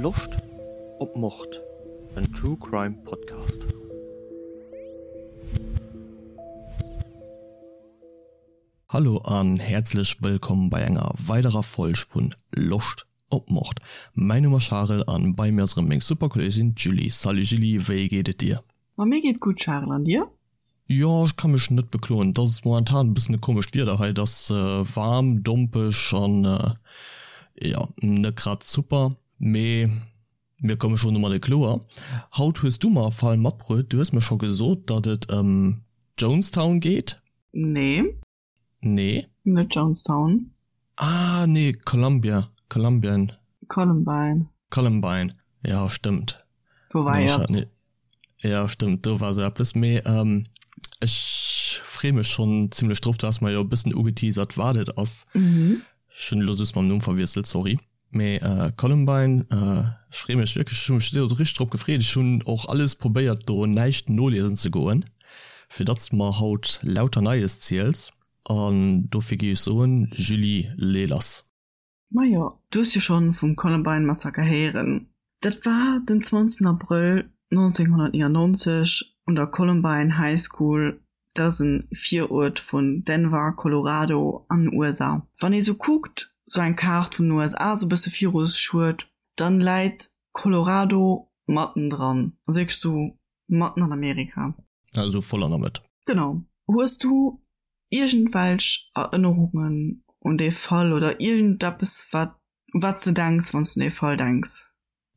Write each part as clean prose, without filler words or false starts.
Loscht op Mord? En True Crime Podcast. Hallo an häerzlech wëllkomm bei enger weiderer Folg vun Loscht op Mord. Mäin Numm ass Charel an bei mir ass erëm meng super Kolleegin d'Julie. Salut Julie, wéi geet et dir? Ma mir geet gutt Charel, an dir? Jo, ech ka mech net bekloen. Et ass momentan e bëssen e komescht Wieder hei. Et ass waarm, dompeg an jo, net grad super, mee mir komme schonn domadde kloer. Haut hues du mer e Fall matbruet. Du hues mer scho gesot, datt et ëm Jonestown geet. Nee. Nee. Net Jonestown. Ah nee, Columbia, Columbien. Columbine. Columbine, ja stëmmt. Do war nee, eppes. Ja stëmmt, do war sou eppes. Mee ähm, ech free mech schonn zimmlech drop. Du has mer jo e bëssen ugeteasert, wat et ass. Mhm. Ech hunn elo just mam Numm verwiesselt, sorry. Mee Columbine, ech free mech wierklech, ech hu mech do richteg drop gefreet. Ech hunn och alles probéiert do näischt noliesen ze goen, fir datt s de mer haut lauter Neies ziels. An dofir géif ech soen, Julie, lee lass. Majo, du hues jo schonn vum Columbine Massaker héieren. Dat war den 20 Abrëll 1999 un der Columbine High School Dat ass en Viruert vun Denver, Colorado an den USA. Wann ee sou kuckt, sou eng Kaart vun den USA sou bësse viru sech huet, dann läit Colorado matten dran, also wierklech sou matten an Amerika. Also voll an der Mëtt. Genau. Hues du iergendwelch Erënnerungen un dee Fall oder iergendeppes wat u wat s de denks, wann s du un dee Fall denks?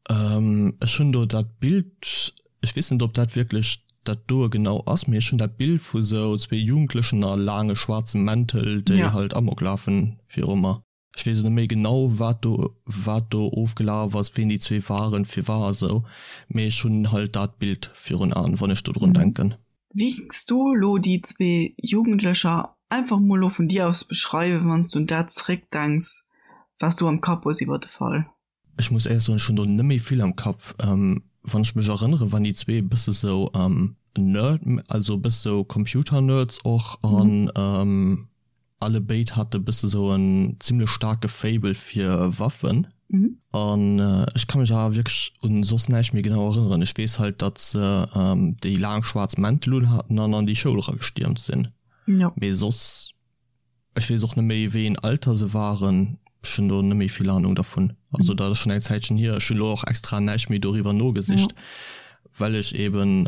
Ech hunn do dat Bild, ech weess net ob dat wierklech dat doe genau ass, mee ech hunn dat Bild vu sou zwee Jugendlechen a laange schwaarze Mäntel, déi halt Amok lafen viru mer. Ech weess net méi genau wat do wat do ofgelaf ass, ween déi zwee waren, firwat a sou, mee ech hunn halt dat Bild virun Aen, wann ech dodrun denken. Wéi géings du elo déi zwee Jugendlecher einfach mol elo vun dir aus beschreiwen, wann s du un dat zeréckdenks, wat s du am Kapp hues iwwer de Fall? Ech muss éierlech soen, ech hunn do net méi vill am Kapp. Wann ech mech erënneren, waren déi zwee e bësse sou Nerd, also e bësse sou Computer-Nerds och an alle béid hate bësse sou en zimlech staarke Faible fir Waffen. An ech ka mech awer wierklech un soss näischt méi genau erënneren. Ech weess halt, datt se déi laang schwaarz Mäntel un haten an an déi Schoul eragestiermt sinn. Mee soss. Ech weess och net méi wéi een Alter se waren, ech hunn do net méi vill Ahnung dervun. Also dat ass schonn eng Zäitchen hier. Ech hunn elo och extra näischt méi doriwwer nogesicht, well ech eben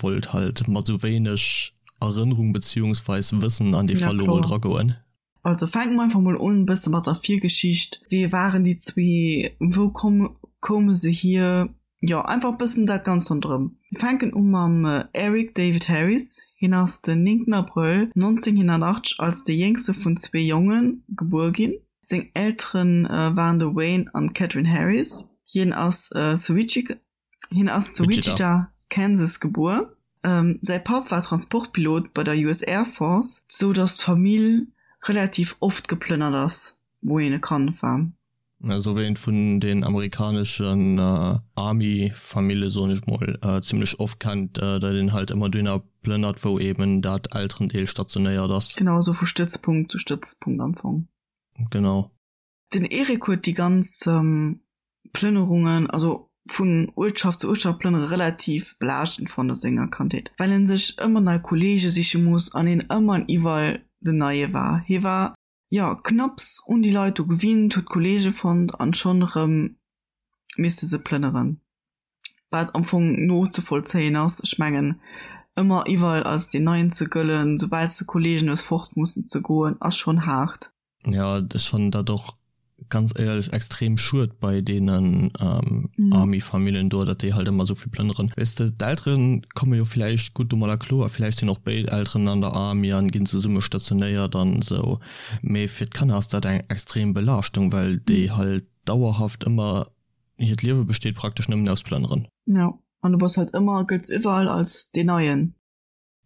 wollt halt mat esou wéineg Erënnerung beziehungsweis Wëssen an dee Fall elo mol dragoen. Also fänke mer einfach mol un e bësse mat der Virgeschicht. Wie waren déi zwee? Wou koume se hier? Jo, einfach e bëssen dat Ganzt ronderëm. Mir fänken u mam Eric David Harris. Hien ass den 9 Abrëll 1980 als dee jéngste vun zwee Jonge gebuer ginn. Seng Eltere waren de Wayne an d'Catherine Harris. Hien ass zu Wichita, Kansas gebuer. Säi Papp war Transportpilot bei der US Air Force, sou datt d'Famill relativ oft geplënnert ass, wou hien e Kand war. Esou wéi een et vun den amerikaneschen Army-Famille, soen ech mol, zimlech oft kennt, datt een halt ëmmer dohinner plënnert, wou eben dat Elterendeel stationéiert ass. Genau, esou vu Stëtzpunkt zu Stëtzpunkt am Fong. Genau. Den Eric huet déi ganz Plënnerungen, also vun Uertschaft zu Uertschaft plënnere relativ belaaschtend fonnt a senger Kandheet, well en sech ëmmer nei Kolleege siche muss an een ëmmer an iwwerall den Neie war. Hie war jo, knapps un déi Leit do gewinnt, huet Kollege fonnt an schonn erëm misste se plënneren. Wat am Fong nozevollzéien ass. Ech mengen, ëmmer iwwerall als deen Neien ze gëllen, soubal s de Kollegen hues, fort mussen ze goen, ass schonn haart. Jo, ech fannen dat och ganz éierlech extrem schued bei deenen Army-Famillen do, datt déi halt ëmmer esou vill plënneren. Weess de, d'Eltere komme jo villäicht gutt domadder kloer, villäicht sinn och béid Elteren an der Army an ginn zesumme stationéiert an esou, mee fir d'Kanner ass dat eng extrem Belaaschtung, well déi halt dauerhaft ëmmer, hiert Liewe besteet praktesch nëmmen aus Plënneren. Jo, an du bass halt ëmmer, gëlls iwwerall als deen Neien.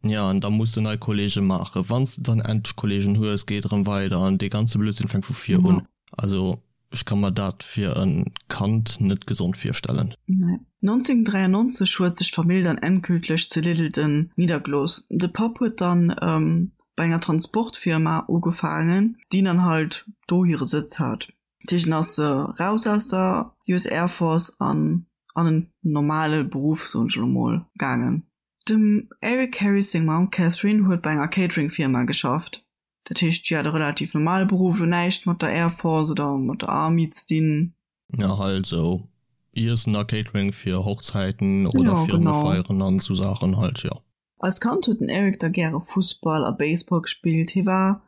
Jo, an da muss de nei Kollege maachen. Wann s de dann endlech Kollegen hues, geet erëm weider an dee ganze Blödsinn fänkt vu vir un. Also ech ka mer dat fir e Kand net gesond virstellen. Nee. 1993 huet sech d'Famill dann endgültlech zu Littleton niddergelooss. De Papp huet dann bei enger Transportfirma ugefaangen, déi dann halt do hire Sëtz hat. Dat heescht en ass raus aus der US Air Force an an en normale Beruff, soen ech elo mol, gaangen. Dem Eric Harris seng Mamm Catherine huet bei enger Catering-Firma geschafft. Dat heescht, si hat e relativ normale Beruff, elo näischt mat der Air Force oder mat der Army ze dinn. Ja, halt sou Iessen a Catering fir Hochzäiten oder Ja, genau. Firmefeieren an sou Saachen halt, jo. Als Kand huet den Eric da gäre Fussball a Baseball gespillt. Hie war,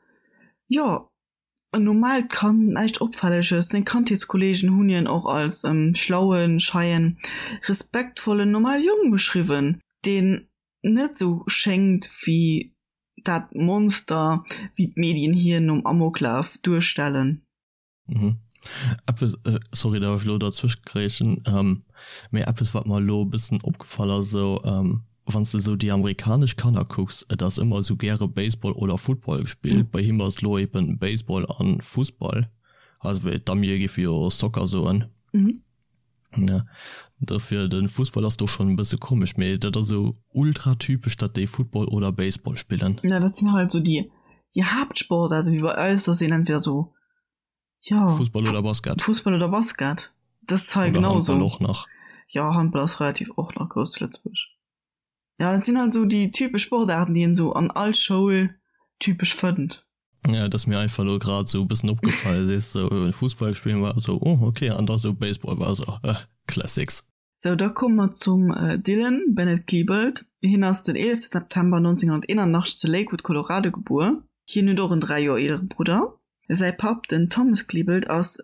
jo, en normaalt Kand, näischt Opfälleges. Seng Kandheetskolleegen hunn hien och als schlauen, scheien, respektvollen, normale Jong beschriwwen, deen net sou schéngt wéi dat Monster, wéi d'Medien hien nom Amoklaf duerstellen. Mhm. Eppes, sorry datt ech elo derzwëscht grätschen, mee eppes wat mer elo e bëssen opgefall ass, esou wann s de esou déi amerikanesch Kanner kucks, et ass ëmmer esou gäre Baseball oder Football gespillt. Bei him ass elo eben Baseball an Fussball, also wéi d'Amie géife jo Soccer soen. Ja, dofir de Fussball ass do schonn e bësse komesch, mee dat ass esou ultra typesch, datt déi Football oder Baseball spillen. Ja, dat sinn halt esou déi déi Haaptsportaarten, wéi bei eis, datt een entweder esou, jo, Fussball oder Basket. Fussball oder Basket, dat ass hei Oder genau Handball esou. och nach. Jo, Handball ass relativ och nach grouss zu Lëtzebuerg. Ja, dat sinn halt esou déi typesch Sportaarten, déi een esou an all Schoul typesch fënnt. Ja, dat ass mir einfach elo grad esou e bëssen opgefall, sees sou Fussball spillen war esou oh okay an da sou Baseball war esou eh Classics. Sou, da komme mer zum Dylan Bennett Klebold. Hien ass den 11 September 1981 zu Lakewood, Colorado gebuer. Hien huet och en 3 Joer eelere Brudder. Säi Papp, den Thomas Klebold, ass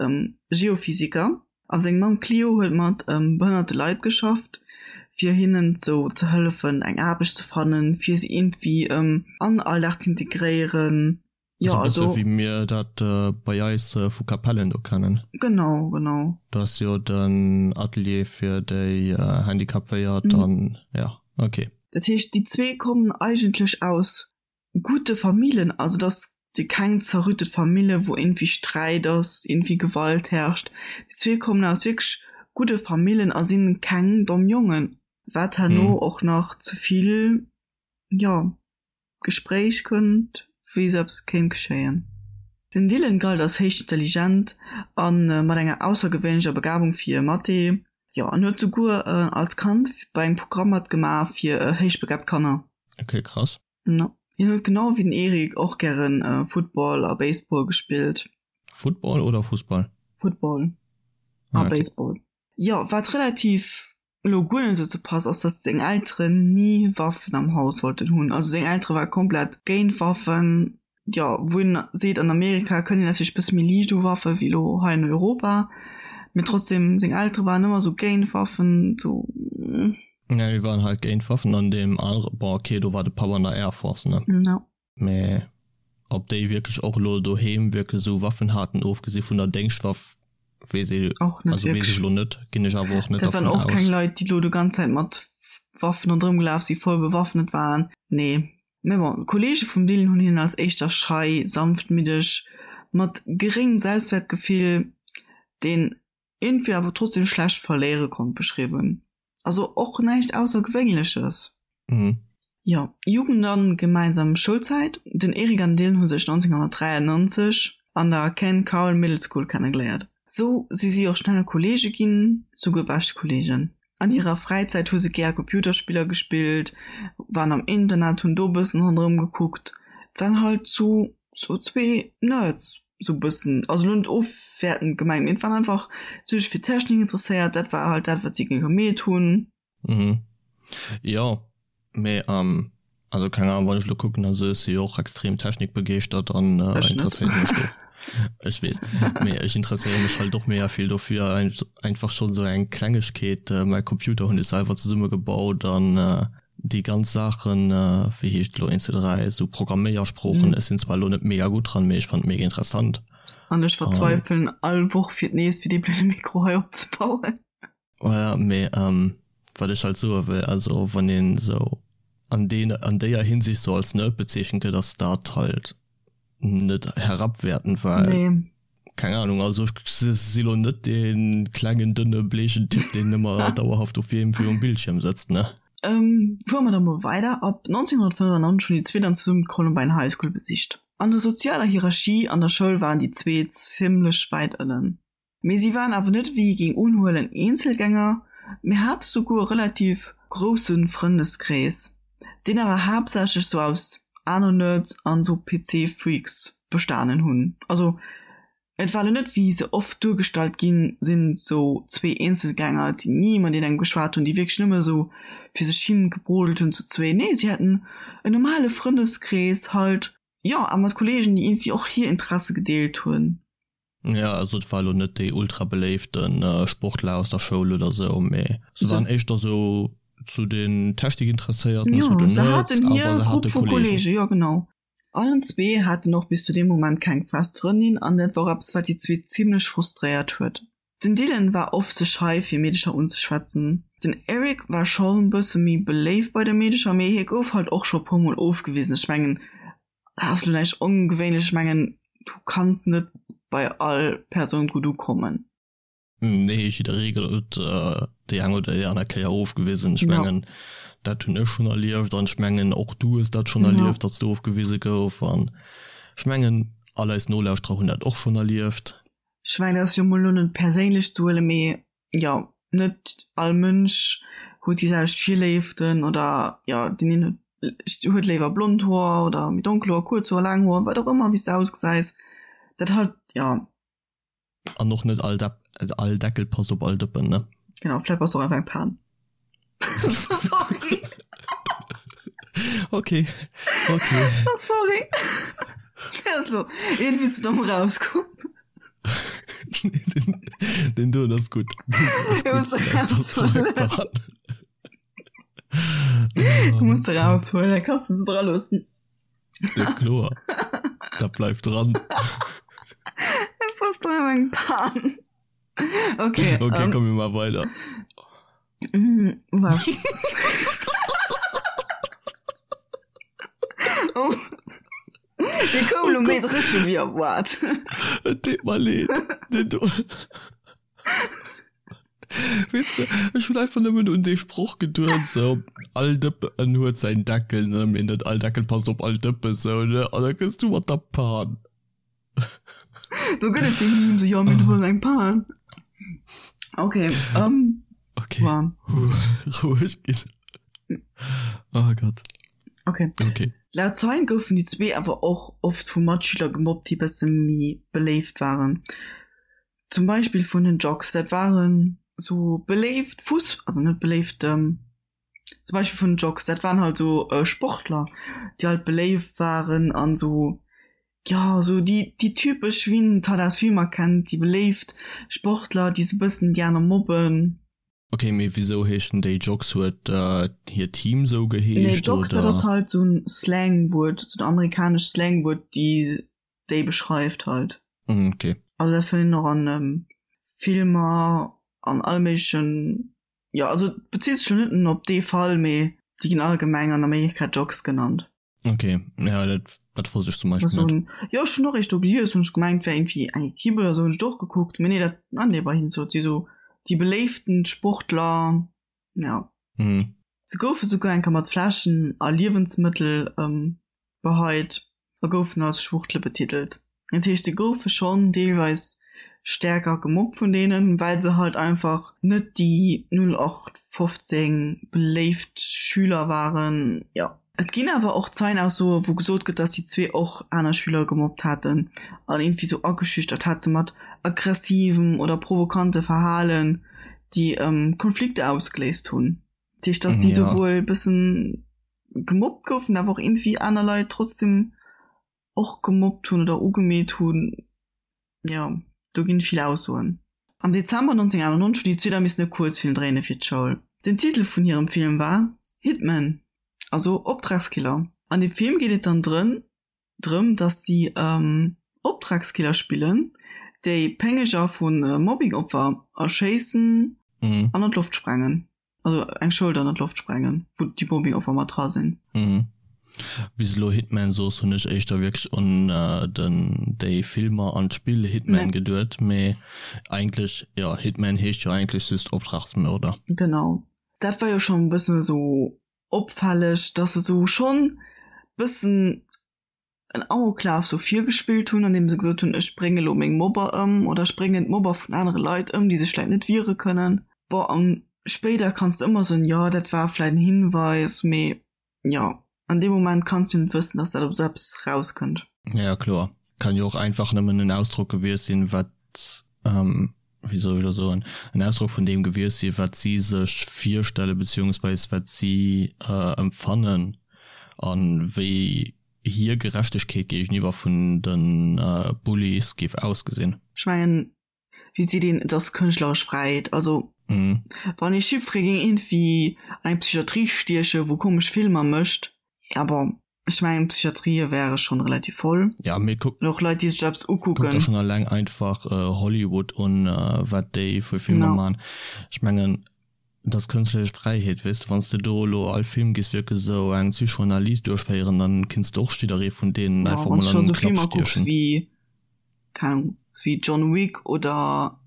Geophysiker A seng Mamm Cleo huet mat behënnerte Leit geschafft, fir hinnen sou ze hëllefen eng Aarbecht ze fannen, fir si iergendwéi an den Alldag z'integréieren. Jo, also. Esou e bësse wéi mir dat bei eis vu Capellen do kennen. Genau, genau. Do ass jo den Atelier fir déi Handicapéiert an jo, ok. Dat heescht, déi zwee kommen eigentlech aus gudde Famillen, also dass si keng zerrüttet Famille wou iergendwéi Sträit ass, iergendwéi Gewalt herrscht. Déi zwee kommen aus wierklech gudde Famillen a sinn keng domm Jongen, wat herno och nach zu vill, jo, Gespréich kënnt, wéi esou eppes kéint geschéien. Den Dylan galt als héich intelligent a mat enger aussergewéinlecher Begabung fir Mathé, jo, an huet souguer als Kand bei engem Programm matgemaach fir héichbegabt Kanner. Ok, krass. No. Hien huet genau wéi den Eric och gären Football a Baseball gespillt. Football oder Fussball? Football a Baseball. Jo, wat relativ elo guer net dozou passt, ass dass seng Elteren ni Waffen am Haus wollten hunn. Also seng Eltere ware komplett géint Waffen. Jo, wou een seet, an Amerika kënnt een natierlech bësse méi liicht u Waffe wéi elo hei an Europa, mee trotzdem, seng Eltere waren ëmmer esou géint Waffen, esou. Ja, déi waren halt géint Waffen an deem anere, bon ok, do war de Papp an der Air Force, ne? Ja. Mee ob déi wierklech och elo doheem wierklech esou Waffen haten, ofgesi vun der Déngschtwaff, weess ee, Och net also weess wierklech. ech elo net, ginn ech awer och net Dat waren dervun och keng aus. Leit, déi elo déi ganz Zäit mat Waffen ronderëm gelaf sinn, voll bewaffnet waren, nee. Mä bon, d'Kolleege vum Dylan hunn hien als éischter schei, sanftmiddeg, mat geréngem Selbstwäertgefill, deen iergendwéi awer trotzdem schlecht verléiere konnt, beschriwwen. Also och näischt Aussergewéinleches. Jo, Jugend an gemeinsam Schoulzäit, Den Eric an den Dylan hu sech 1993 an der Ken Carroll Middle School kennegeléiert. Sou si si och schnell Kolleege ginn, souguer bescht Kolleegen. An hirer Fräizäit hu se gär Computerspiller gespillt, waren am Internet, hunn do bëssen ronderëm gekuckt. Et waren halt sou sou zwee Nerds sou bëssen, also lo net ofwäertend gemengt, mee et waren einfach sech fir Technik interesséiert, dat war halt dat wat si gemeet hunn. Mhm. Jo, mee also keng Ahnung, wann ech elo kucken, also ech si jo och extrem technikbegeeschtert an interesséiere mech do, ech weess, mee ech interesséiere mech halt och mega vill dofir, einfach schonn esou eng Klengegkeet, mäi Computer hunn ech selwer zesummegebaut an déi ganz Saachen, wéi heescht elo, 1, 2, 3, esou Programméiersproochen, ech sinn zwar elo net mega gutt dran, mee ech fannen et mega interessant. An ech verzweifelen all Woch fir d'nees fir dee blöde Mikro hei opzebauen. Voilà, mee wat ech halt soe wëll, also wann een esou an deen, an déier Hinsicht sou als Nerd bezeechent gëtt, ass dat halt net herabwertend, well, Nee. keng Ahnung, also ech si lo net dee klengen, dënne, bleechen Typ, deen ëmmer dauerhaft op wiem virum Bildschierm sëtzt, ne. Fuere mer da mol weider. Ab 1995 hunn déi zwee dann zesummen d'Columbine High School besicht. An der sozialer Hierarchie an der Schoul waren déi zwee zimmlech wäit ënnen. Mee si waren awer net wéi ee géing unhuelen Eenzelgänger, mee hate souguer e relativ grousse Frëndeskrees, deen awer haaptsächlech sou aus aner Nerds an sou PC-Freaks bestanen hunn. Also et war lo net wéi se oft duergestallt ginn sinn, sou zwee Eenzelgänger déi ni mat engem geschwat hunn, déi wierklech nëmme sou fir sech hin gebrodelt hunn zu zwee. Nee, si haten en normale Frëndeskrees halt, jo, a mat Kollegen déi iergendwéi och hir Interesse gedeelt hunn. Ja, also et war elo net déi ultra beléifte Sportler aus der Schoul oder sou, mee se waren éischter sou zu den Technikinteresséierten, zu den Nerds, awer se hate Kollegen. Jo, genau. Allen zwee haten och bis zu deem Moment keng fest Frëndin an dat war och eppes, wat déi zwee zimmlech frustréiert huet. Den Dylan war oft ze schei fir Meedecher unzeschwätzen. Den Eric war schonn bësse méi beléift bei de Meedecher, mee hie gouf halt och scho puer mol ofgewisen. Ech mengen, Dat ass lo näischt ongewéinlech, ech mengen du kanns net bei all Persoun gutt ukommen. Nee, jidderee gëtt déi eng oder déi aner Kéier ofgewisen. Ech mengen dat hunn ech schonn erlieft an ech mengen och du hues dat schonn erlieft, datt s du ofgewise gouf an ech mengen all eis Nolauschterer hunn dat och schonn erlieft. Ech mengen dat ass jo mol lo net perséinlech ze huelen, mee jo net all Mënsch huet déi selwecht Virléiften oder jo deen een huet léiwer blond Hoer oder méi donkel Hoer, kuerz Hoer, laang Hoer, wat och ëmmer, wéi s de ausgesäis, dat halt jo. An och net all Depp, all Deckel passt op all Dëppen, ne? Genau, vläit bass de och einfach eng Pan. Sorry. Okay, okay. Oh, sorry. Also, irgendwie ze domm rauskomm. Den doen ass gutt. Du muss de raushuelen, da kannst du se dra loossen. Ja, kloer. Dat bleift dran. Du bass doch eng Pan. Okay. Okay, um, kommen wir mal weiter. Mm, was? oh. Dir koum lo méi dréche wéi erwaart. Et deet mer leed. Den do. Weess de, ech hunn einfach nëmmen un dee Sproch geduet, sou, all Dëppen huet säin Deckel, ne, mee net all Deckel passt op all Dëppen, sou, ne, an da kënns du mat der Pan. Do gëtt et dee Meme, sou, jo, mee du hues eng Pan. Okay, ähm. Okay. Wow. Roueg ginn. Oh Gott. Okay. Okay. Laut Zeien goufen déi zwee awer och oft vu Matschüler gemobbt, déi bësse méi beléift waren. Zum Beispill vun den Jocks. Dat waren sou beléift Fuss-, also net beléift, zum Beispill vun den Jocks, dat waren halt sou Sportler, déi halt beléift waren an sou, jo, sou déi, déi typesch, wéi een et halt aus Filmer kennt, déi beléift Sportler, déi sou bëssen déi aner mobben. Ok, mee wisou heeschen déi Jocks? Huet hiert Team sou geheescht? Nee, Jocks, dat ass halt sou en Slangwuert, sou en amerikanescht Slangwuert, déi déi beschreift halt. Ok. Also dat fënnt een och an Filmer, an alle méiglechen, jo, also et bezitt sech lo net nëmmen op dee Fall, mee déi ginn allgemeng an Amerika Jocks genannt. Ok, ja dat, dat wosst ech zum Beispill net. Jo, ech hunn och eréischt do gelies, hunn ech gemengt wär iergendwéi eng Equipe oder sou, hunn ech och gekuckt, mee nee dat, ah nee, bei hinnen sot si sou déi beléiften Sportler, ja. Mhm. Se goufe souguer eng Kéier mat Fläschen a Liewensmëttel beheit a goufen als Schwuchtle betitelt. Dat heescht, se goufe schonn deelweis stäerker gemobbt vun deenen, well se halt einfach net déi 0815 beléift Schüler waren. Jo. Et ginn awer och Zeienaussoe wou gesot gëtt, datt déi zwee och aner Schüler gemobbt haten an iergendwéi sou ageschüchtert hate mat aggressivem oder provokante Verhalen, déi Konflikter ausgeléist hunn. Dat heescht, datt si souwuel e bëssen gemobbt goufen, awer och iergendwéi aner Leit trotzdem och gemobbt hunn oder ugemeet hunn. Jo, do ginn vill Aussoen. Am Dezember 1991 hunn déi zwee da missen e Kuerzfilm dréine fir d'Schoul. Den Titel vun hirem Film war Hitman, also Optragskiller. An dem Film geet et dann drëm, drëm datt si Optragskiller spillen, déi Péngeger vu Mobbingopfer erschéissen an an d'Loft sprengen. Also eng Schoul dann an d'Loft sprengen, wou déi Mobbingopfer mat dra sinn. Mhm. Wéi s de elo Hitman soos, hunn ech éischter wierklech un den déi Filmer an d'Spill Hitman geduet, mee eigentlech, jo, Hitman heescht jo eigentlech just Optragsmörder. Genau. Dat war jo schonn e bëssen esou opfälleg, dass se sou schonn bëssen. en Amoklaf sou virgespillt hunn, andeem se gesot hunn, ech brénge lo meng Mobber ëm oder ech bréngen d'Mobber vun anere Leit ëm, déi sech vläit net wiere kënnen. Bon, an spéider kanns de ëmmer soen, jo dat war vläit en Hinweis, mee jo, an deem Moment kanns du net wëssen, dass dat op esou eppes rauskënnt. Ja kloer, kann jo och einfach nëmmen en Ausdrock gewiescht sinn, wat, wéi soll ech elo soen, en Ausdrock vun deem gewiescht sinn, wat si sech virstelle beziehungsweis wat si empfannen an wéi hir Gerechtegkeet géigeniwwer vun de Bullies géif ausgesinn. Ech mengen, wéi seet een, et ass kënschtleresch Fräiheet. Also wann ee Chiffre géing iergendwéi an eng Psychiatrie stiechen, wou komesch Filmer mécht, ja bon, ech mengen d'Psychiatrië wäre schonn relativ voll. Ja, mee kuck. An och Leit, déi sech eppes ukucken. Kuck der schonn eleng einfach Hollywood un, wat déi fir Filmer man. Ech mengen, Et ass kënschtleresch Fräiheet, weess de, wann s de do elo all Film giss wierklech esou eng Psychoanalyse duerchféieren, dann kinns de och jidderee vun deenen einfach mol an en Klapp stiechen. Wéi, keng Ahnung, wéi John Wick oder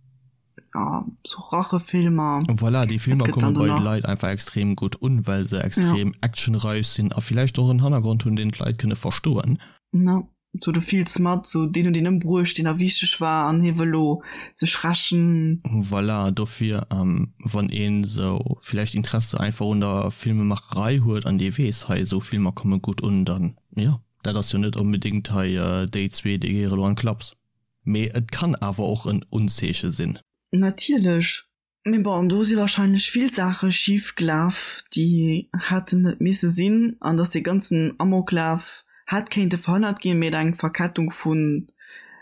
ja sou Rachefilmer. Voilà, déi Filmer komme bei de Leit einfach extrem gutt un, well se extrem actionreich sinn a villäicht och en Hannergrond hunn, deen d'Leit kënne verstoen. Na. Sou du fills mat, sou deen huet een ëmbruecht, deen der wichteg war an hie wëll lo sech rächen. Voilà, dofir wann een sou villäicht Interesse einfach un der Filmemacherei huet an dee weess, hei esou Filmer komme gutt un, dann jo, dat ass jo net onbedéngt hei déi zwee déi gehéiere lo an d'Klaps. Mee et kann awer och en Unzeeche sinn. Natierlech. Mee bon, do si wahrscheinlech vill Saache schif gelaf, déi hätten net misse sinn, an dass dee ganzen Amoklaf hätt kéinte verhënnert ginn, mee et eng Verkettung vu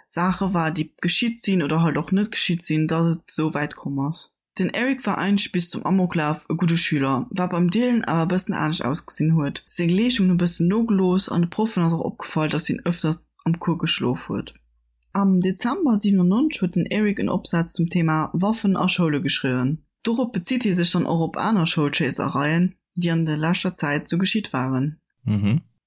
Saache war, déi geschitt sinn oder halt och net geschitt sinn, dass et esou wäit komm ass. Den Eric war eigentlech bis zum Amoklaf e gudde Schüler, wat beim Dylan awer e bëssen anescht ausgesinn huet. Seng Leeschtung hunn e bëssen nogelooss an de Proffen ass och opgefall, dass hien ëfters am Cours geschlof huet. Am Dezember 97 huet den Eric en Opsaz zum Thema Waffen a Schoule geschriwwen. Dorop bezitt hie sech dann och op aner Schoulschéissereien, déi an der leschter Zäit sou geschitt waren.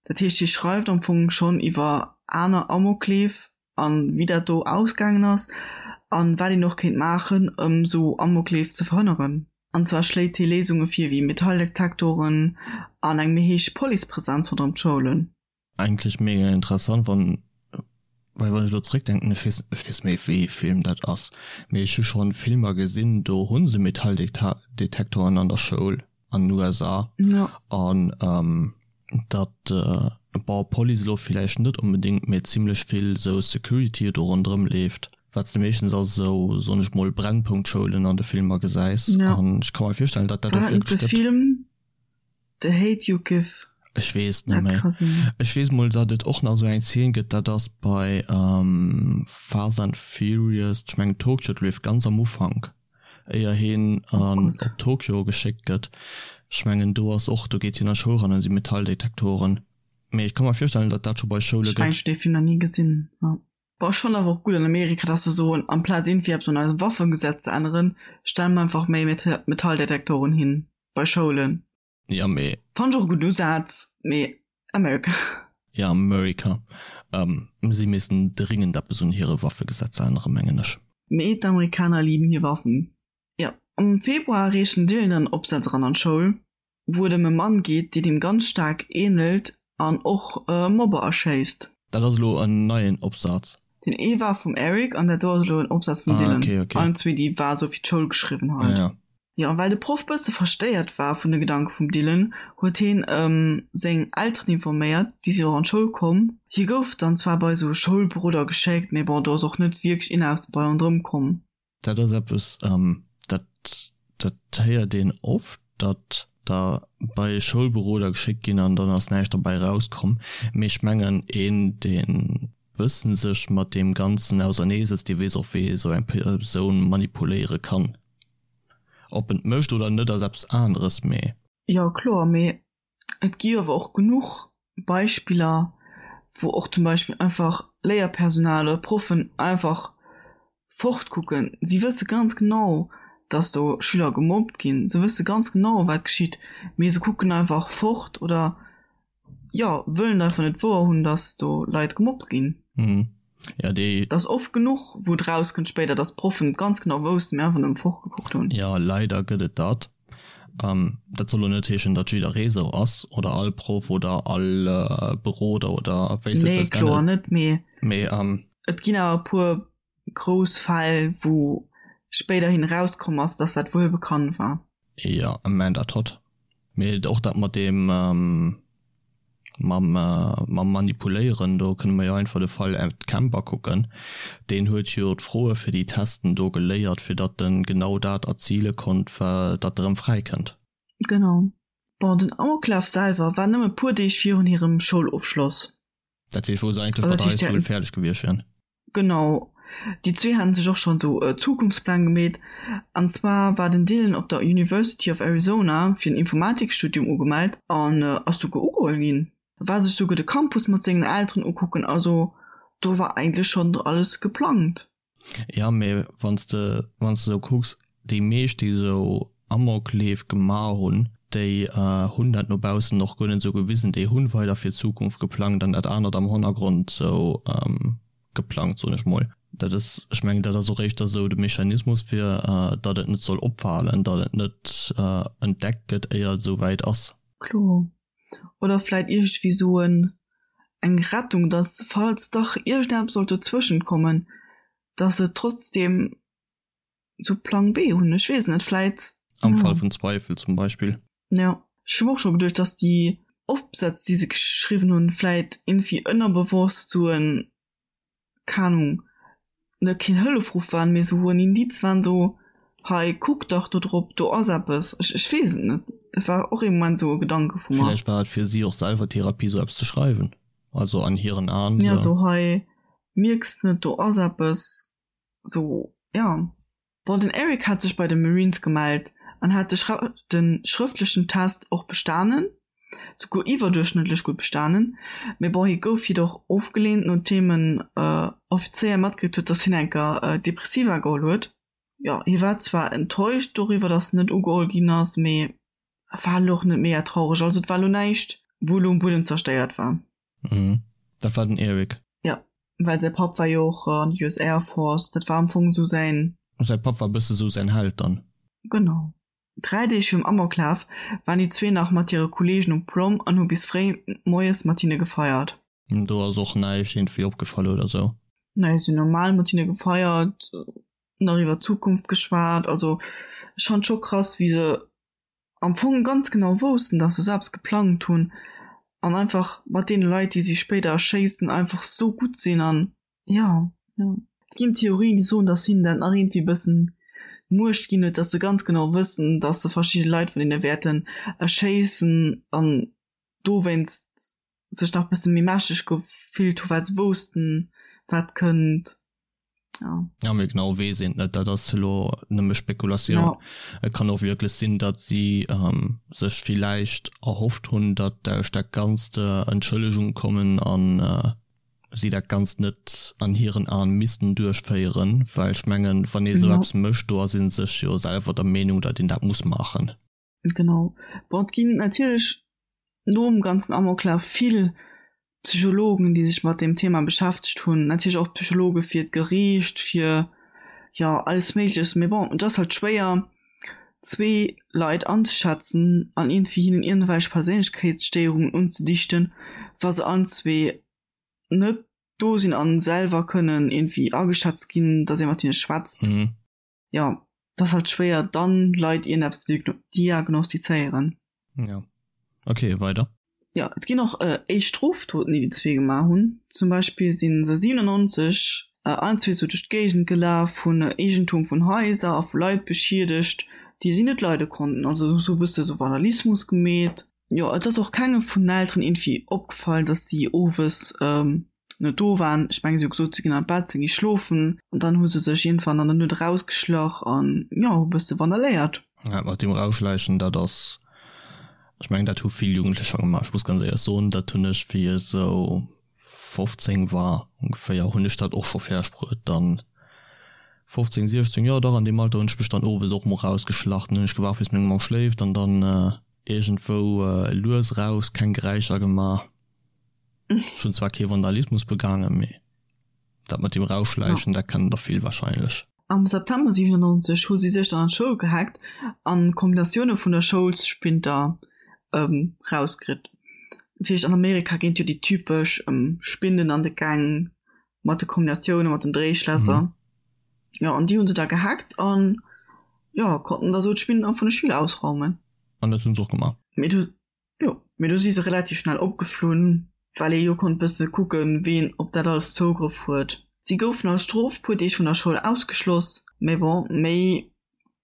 Dat heescht, hie schreift am Fong schonn iwwer aner Amokleef a wéi dat do ausgaangen ass a wat een och kéint maachen, ëm sou Amokleef ze verhënneren. An zwar schléit hie Léisunge vir wéi Metalldetektoren an eng méi héich Policepresenz ronderëm d'Schoulen. Eigentlech mega interessant, wann, well wann ech elo zréckdenken, ech weess, ech weess méi wéi ee Film dat ass, mee ech hu schonn Filmer gesinn, do hu se Metalldetektoren an der Schoul an den USA an datt, bon Police elo villäicht net onbedéngt, mee zimlech vill esou Security do ronderëm leeft, wat s de meeschtens a sou, soen ech mol, Brennpunktschoulen an de Filmer gesäis an ech ka mer virstellen, datt dat och wierklech gëtt. The Hate U Give. Ech weess net méi. Ech weess mol datt et och nach esou eng Zeen gëtt, dat ass bei Fast and Furious, ech mengen Tokyo Drift, ganz am Ufank, éier hien an op Tokyo geschéckt gëtt. Ech mengen do ass och, do geet hien an d'Schoul ran an si Metalldetektoren. Mee ech ka mer virstellen, datt dat scho bei Schoule gëtt. Ech mengen ech hunn dee Film nach ni gesinn. Bon, ech fannen awer och gutt an Amerika, dass se soen, amplaz iergendwéi eppes un eisem Waffengesetz ze änneren, stelle mer einfach méi Metalldetektoren hin bei Schoulen. Ja, mee. Fannen ech och e gudden Usaz, mee America. Ja, America. Si missten dringend eppes un hire Waffegesetz änneren, mengen ech. Mee d'Amerikaner liben hir Waffen. Jo, am Februar reecht den Dylan dann Opsaz eran an d'Schoul. wou et ëm e Mann geet, deen him ganz staark ähnelt an och e Mobber erschéisst. Dat ass elo en neien Opsaz. Deen ee war vum Eric an dat do ass elo en Opsaz vum Dylan. Allen zwee, déi war esou fir d'Schoul geschriwwen halt. Ja. Jo, a well de Proff bësse verstéiert war vun de Gedanke vum Dylan, huet hien ëm seng Elteren informéiert, déi sinn och an d'Schoul komm. Hie gouf dann zwar bei esou e Schoulberoder geschéckt, mee bon, do ass och net wierklech een aus bei ronderëm komm. Dat ass eppes, dat, dat héiert een oft, datt der bei e Schoulberoder geschéckt ginn an dann ass näischt derbäi erauskomm. Mee ech mengen, een, dee bëssen sech mat deem Ganzen auserneesetzt, dee weess och, wéi ee sou eng Persoun manipuléiere kann. Ob en et mécht oder net, ass eppes aneres, mee. Jo, kloer, mee Et gi awer och genuch Beispiller, wou och zum Beispill einfach Léierpersonal oder Proffen einfach fortkucken. Si wësse ganz genau, dass do Schüler gemobbt ginn. Se wësse ganz genau, wat geschitt, mee se kucken einfach fort oder, jo, wëllen einfach net wouerhunn, dass do Leit gemobbt ginn. Ja, déi. Et ass oft genuch, wou et rauskënnt spéider, dass d'Proffen et ganz genau woussten, mee einfach nëmme fortgekuckt hunn. Jo, leider gëtt et dat. Dat soll lo net heeschen, datt jidderee sou ass oder all Proff oder all Beroder oder wéi s de et Nee, wëlls kloer nennen. net, mee Mee et ginn awer e puer grouss Fäll, wou spéiderhin erauskomm ass, datt dat wuel bekannt war. Jo, Amanda Todd. Mee och dat mat deem mam mam Manipuléieren, do kënne mer jo einfach de Fall Ed Kemper kucken. Deen huet jo d'Froe fir déi Testen do geléiert, fir datt en genau dat erzile konnt, datt e rëm fräi kënnt. Genau. Bon, den Amoklaf selwer war nëmme puer Deeg virun hirem Schoulofschloss. Dat heescht, wou se eigentlech mat der High School fäerdeg gewiescht wären. Genau, déi zwee haten sech och schonn esou Zukunftspläng gemeet. An zwar war den Dylan op der University of Arizona fir en Informatikstudium ugemellt an ass souguer ugeholl ginn. War sech souguer de Campus mat sengen Elteren ukucken, also do war eigentlech schonn alles geplangt. Jo, mee wann s de wann s de esou kucks, déi meescht déi esou Amokleef gemaach hunn, déi hunn dat no baussen och guer net esou gewisen, déi hunn weider fir d'Zukunft geplangt an dat anert am Honnergrond esou geplangt, soen ech mol. Dat ass, ech mengen dat ass och éischter esou de Mechanismus fir datt et net soll opfalen, datt et net entdeckt gëtt éier et esou wäit ass. Kloer. Oder vläit iergendwéi esou en eng Rettung, datt falls dach iergendeppes sollt dozwëschent kommen, datt se trotzdem sou Plang B hunn, ech weess net, vläit. Am Fall vun Zweifel zum Beispill. Jo, ech hu och scho geduecht, dass déi Opsätz, déi se geschriwwen hunn, vläit iergendwéi ënnerbewosst sou en, keng Ahnung, net keen Hëllefruff waren, mee sou en Indiz waren, sou, hei kuck dach do drop, do ass eppes. Ech, ech weess et net, dat war och ee Moment sou e Gedanke vu mer. Villäicht war et fir si och selwer Therapie, sou eppes ze schreiwen, also an hiren Aen. Jo, sou hei, mierks net, do ass eppes. Sou, ja. Bon, den Eric hat sech bei de Marines gemellt an hat de de schrëftlechen Test och bestanen, souguer iwwerduerchschnëttlech gutt bestanen, mee bon, hie gouf jedoch ofgeleent, nodeem en Offizéier matkritt huet, dass hien enker Depressiva geholl huet. Jo, hie war zwar enttäuscht doriwwer, dass en net ugeholl ginn ass, mee war elo och net mega traureg, also et war elo näischt, wou elo um Buedem zerstéiert war. Mhm. Dat war den Eric. Ja, well säi Papp war jo och an der US Air Force, dat war am Fong esou säin. Säi Papp war bësse sou säin Held dann. Genau. 3 Deeg virum Amoklaf waren déi zwee nach mat hire Kolleegen um Prom an hu bis fréi moies mat hinne gefeiert. Do ass och näischt iergendwéi opgefall oder sou? Nee, si hunn normal mat hinne gefeiert, nach iwwer d'Zukunft geschwat. Also ech fannen et scho krass, wéi se am Fong ganz genau woussten, dass se selbst geplangt hunn an einfach mat deene Leit, déi si spéider erschéissen, einfach sou gutt sinn an jo, jo. Et ginn Theorien, déi soen, dass hinnen dat nach iergendwéi e bëssen Muecht ginn huet, dass se ganz genau wëssen, dass se verschidde Leit vun hinne wäerten erschéissen an dowéinst sech nach e bësse méi mächteg gefillt hu well se woussten, wat kënnt. Ja. Ja, mee genau weess een et net, dat ass elo nëmme Spekulatioun. Ja. Et kann och wierklech sinn, datt si ähm, sech villäicht erhofft hunn, datt duerch dat Ganzt äh, Entschëllegung kommen an äh, si dat Ganzt net an hiren Aen missten duerchféieren, well ech mengen, wann ee sou ja. eppes mécht, do ass ee sech jo selwer der Meenung, datt een dat muss maachen. Genau. Bon, et ginn natierlech nom ganzen Amoklaf vill Psychologen, déi sech mat deem Thema beschäftegt hunn. Natierlech och Psychologe fir d'Geriicht, fir, jo, alles Méigleches. Mee bon, et ass halt schwéier, zwee Leit anzeschätzen an iergendwéi hinnen iergendwelch Perséinlechkeetsstéierungen unzedichten, wa se allen zwee net do sinn a selwer kënnen iergendwéi ageschätzt ginn, datt ee mat hinne schwätzt. Jo, et ass halt schwéier dann Leit iergendeppes ze diagnostizéieren. Ja. Ok, weider. Jo, et ginn och éischt Strofdoten, déi déi zwee gemaach hunn. Zum Beispill si se 97 allen zwee sou duerch d'Géigend gelaf, hunn Eegentum vun Haiser a vu Leit beschiedegt, déi si net leide konnten. Also sou e bësse sou Vandalismus gemeet. Jo, et ass och kengem vun den Elteren iergendwéi opgefall, dass si owes net do waren. Ech mengen, si hu gesot, si ginn an d'Bett, si gi schlofen. An dann hu se sech iergendwann an der Nuet erausgeschlach an, jo, hu e bësse vandaléiert. Dat mat deem Erausschläichen, dat ass, ech mengen, dat hu vill Jugendlecher gemaach. Ech muss ganz éierlech soen, dat hunn ech, wéi ech esou 15 war ongeféier, hunn ech dat och scho fäerdeg bruet. Dann 15, 16, jo dach an deem Alter hunn ech mech dann owes och mol erausgeschlach. Dann hunn ech gewaart, bis meng Mamm schléift an dann iergendwou lues eraus, keng Geräischer gemaach. Ech hunn zwar kee Vandalismus begaangen, mee dat mat dem Rausschläichen, dat kennen der vill wahrscheinlech. Am September 97 hu si sech dann an d'Schoul gehackt an Kombinatioune vun der Schoulsspinter rauskritt. Dat heescht an Amerika ginn et jo déi typesch Spinden an de Gäng mat de Kombinatioune mat den Dréischlässer. Jo an déi hu se da gehackt an jo konnten da sou d'Spinden vun de Schüler ausraumen. An dat hu se och gemaach? Mee du Jo, mee do si se relativ schnell opgeflunn, well ee jo konnt bësse kucken, ween op dat alles Zougrëff huet. Si goufen als Strof puer Deeg vun der Schoul ausgeschloss, mee bon, méi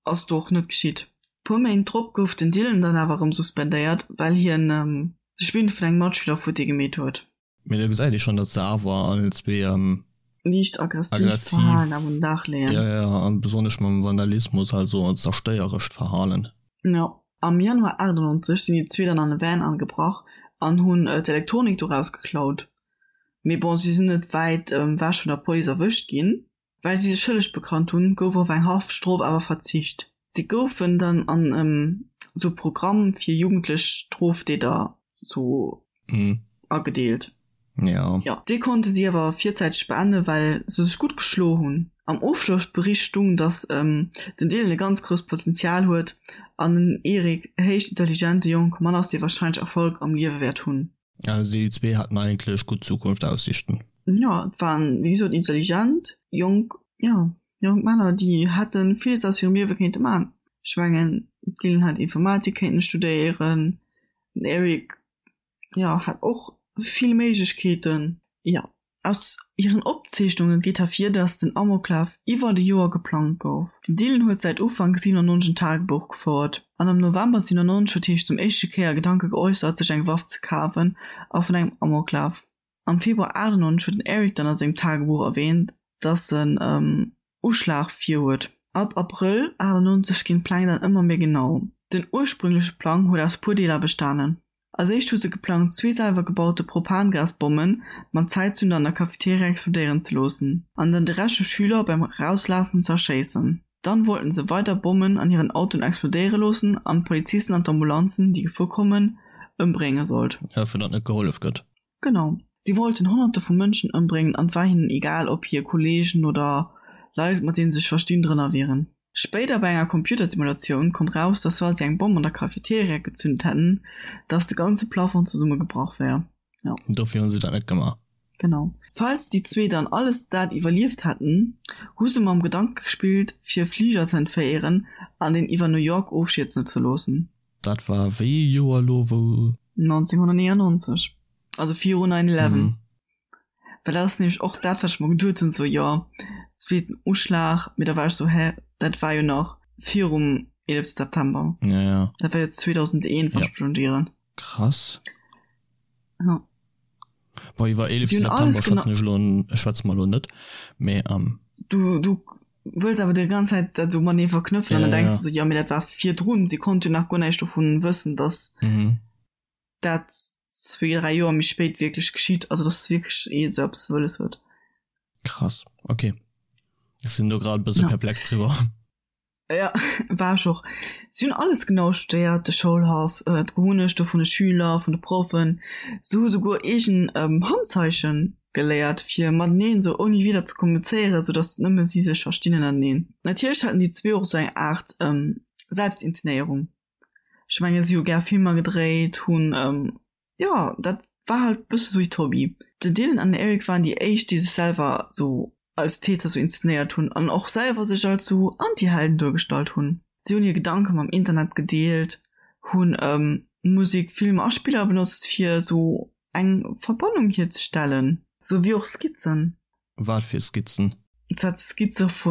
ass do och net geschitt. Puer Méint drop gouf den Dylan dann awer erëm suspendéiert, well hien de Spind vun engem Matschüler futti gemeet huet. Mee do gesäit ee schonn, datt se awer allen zwee liicht aggressiivt Verhalen awer un den Dag leeën. Jo, jo, an besonnesch mam Vandalismus, also zerstéierescht Verhalen. Jo. Am Januar 98 sinn déi zwee dann an e Van agebrach an hunn d'Elektronik doraus geklaut. Mee bon, si sinn net wäit ewech vun der Police erwëscht ginn. Well si sech schëlleg bekannt hunn, gouf op eng Haftstrof awer verzicht. Si goufen dann an esou e Programm fir jugendlech Strofdeeter sou agedeelt. Jo. Jo, dee konnte si awer virzäiteg beenden, well se sech gutt geschlo hunn. Am Ofschlossbericht stung, datt den Dylan e ganz grousst Potenzial huet an den Eric e héich intelligente jonke Mann ass, dee warscheinlech Erfolg am Liewe wäert hunn. Also déi zwee haten eigentlech gutt Zukunftaussichten. Jo, et waren wéi gesot intelligent jonk, jo, jonk Männer, déi hätte villes aus hirem Liewe kéinte man. Ech mengen, d'Dylan hätt Informatik kéinten studéieren, den Eric, jo, hat och vill Méiglechkeeten. Jo, Aus hiren Opzeechnunge geet ervir, datt den Amoklaf iwwert e Joer geplangt gouf. Den Dylan huet säit Ufank 97 en Tagebuch gefouert an am November 97 huet hie sech zum éischte Kéier Gedanke geäussert, sech eng Waff ze kafen a vun engem Amoklaf. Am Februar 98 huet den Eric dann a sengem Tagebuch erwäänt, datt en Uschlag virhuet. Ab Abrëll 98 ginn d'Pläng dann ëmmer méi genau. Den ursprüngleche Plang huet aus puer Deeler bestanen. Als éischt hu se geplangt, zwee selwer gebaute Propangasbommen mat Zäitzünder an der Cafeteria explodéieren ze loossen an dann de Rescht vu Schüler beim Erauslafen ze erschéissen. Dann wollten se weider Bommen an hiren Autoen explodéiere loossen an d'Polizisten an d'Ambulanzen, déi gefuer kommen, ëmbrénge sollt. Fir datt net gehollef gëtt. Genau. Si wollten Honnerte vu Mënschen ëmbréngen an et war hinnen egal, ob hir Kolleegen oder Leit, mat deene se sech verstinn, drënner wieren. Spéider bei enger Computersimulatioun koum raus, dass wa si eng Bomm an der Cafeteria gezünt hätten, dass de ganze Plafond zesummegebrach wär. Jo. Dofir hu se dat net gemaach. Genau. Falls déi zwee dann alles dat iwwerlieft hätten, hu se mam Gedanke gespillt, fir e Fliger ze entféieren an deen iwwer New York ofstierzen ze loossen. Dat war wéi ee Joer elo, wou. 1999, also viru 9 eleven. Well dat ass nämlech och dat, wat ech mer geduet hunn, sou, jo, zweeten Uschlag, mee da war ech sou, hä, dat war jo nach virum 11 September. Ja, ja. Dat war jo 2001, wann ech mech net ieren. Krass. Ja. Bon, iwwer 11 September schwätzen ech elo, schwätze mer elo net, mee. Du, du wëlls awer déi ganz Zäit dat esou matenee verknëpfen an dann denks de sou, jo, mee dat war virdrun, si konnt jo nach guer näischt dovun wëssen, datt dat zwee, dräi Joer méi spéit wierklech geschitt, also datt wierklech ee esou eppes wëlles huet. Krass, okay. Ech sinn do grad e bësse perplex driwwer. Ja, war ech och. Si hunn alles genau studéiert, de Schoulhaff, d'Gewunnechte vun de Schüler, vun de Proffen. Se hu souguer eegen Handzeiche geléiert, fir mateneen esou ouni Wieder ze kommunizéieren, sou datt nëmme si sech verstinn ënnerteneen. Natierlech haten déi zwee och esou eng Aart Selbstinszenéierung. Ech mengen, si hu gär Filmer gedréit, hunn Jo, dat war halt bësse sou hiert Hobby. Den Dylan an den Eric waren déi éischt, déi sech selwer sou als Täter sou inszenéiert hunn an och selwer sech als sou Antihelden duergestallt hunn. Si hunn hir Gedanke mam Internet gedeelt, hunn Musek, Filmer a Spiller benotzt fir sou eng Verbannung hierzestellen, sou wéi och Skizzen. Wat fir Skizzen? Dat Skizze vu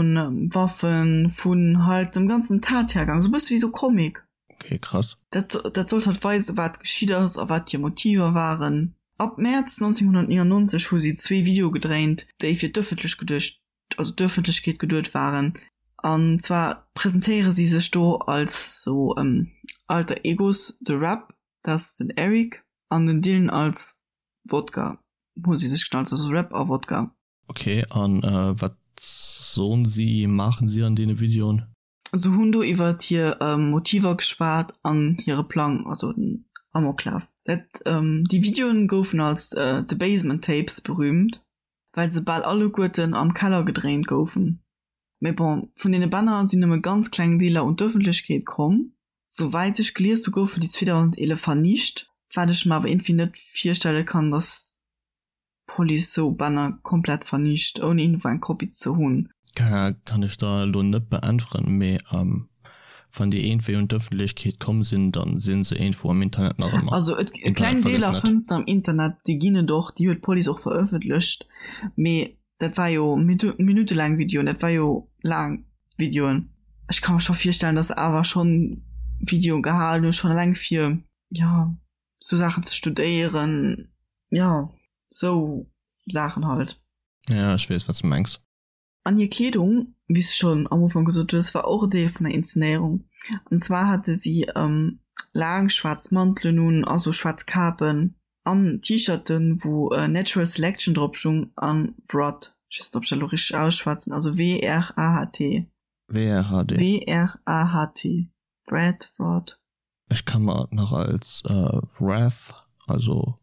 Waffen, vun halt dem ganzen Tathergang, sou bësse wéi sou Comic. Okay, krass. Dat, dat sollt halt weisen, wat geschitt ass a wat hir Motiver waren. Ab Mäerz 1999 hu si zwee Videoe gedréint, déi fir d'ëffentlech geduecht, also d'Ëffentlechkeet geduet waren. An zwar presentéiere si sech do als sou Alter Egos, de Rap, dat ass den Eric, an den Dylan als Wodka hu si sech genannt, also Rap a Wodka. Okay, an wat soen si, maachen si an deene Videoen? Se hunn do iwwert hir Motiver geschwat an hire Plang, also den Amoklaf. Dat déi Videoen goufen als The Basement Tapes berüümt, well se bal alleguerten am Keller gedréint goufen. Mee bon, vun deene Bänner sinn nëmme ganz kleng Deeler un d'Ëffentlechkeet komm. Souwäit ech gelies hu goufen déi 2011 vernicht, wat ech mer awer iergendwéi net virstelle kann, datt d'Police sou Bänner komplett vernicht, ouni iergendwou eng Kopie ze hunn. Kann ech der elo net beäntweren, mee wann déi iergendwéi un d'Ëffentlechkeet komm sinn, dann si se iergendwou am Internet nach ëmmer. Also et kleng Deeler fënns de am Internet, déi ginn et och, déi huet d'Police och verëffentlecht, mee Dat war jo minuttelaang Videoen, dat war jo laang Videoen. Ech ka mer scho virstellen, dass se awer schonn Videoen gehalen hunn, schonn eleng fir, jo, sou Saachen ze studéieren, jo, sou Saachen halt. Ja, ech weess, wat s de mengs. An hir Kleedung, wéi s de schonn am Ufank gesot hues, war och e Deel vun der Inszenéierung. An zwar hate si laang schwaarz Mantelen un a sou schwaarz Kapen. An T-Shirten wou Natural Selection drop stung an Wrath, ech weess net ob ech dat elo richteg ausschwätzen, also W-R-A-H-T. W-R-H-D. W-R-A-H-T, Wrath, Wrath. Ech ka mer et nach als Wrath, also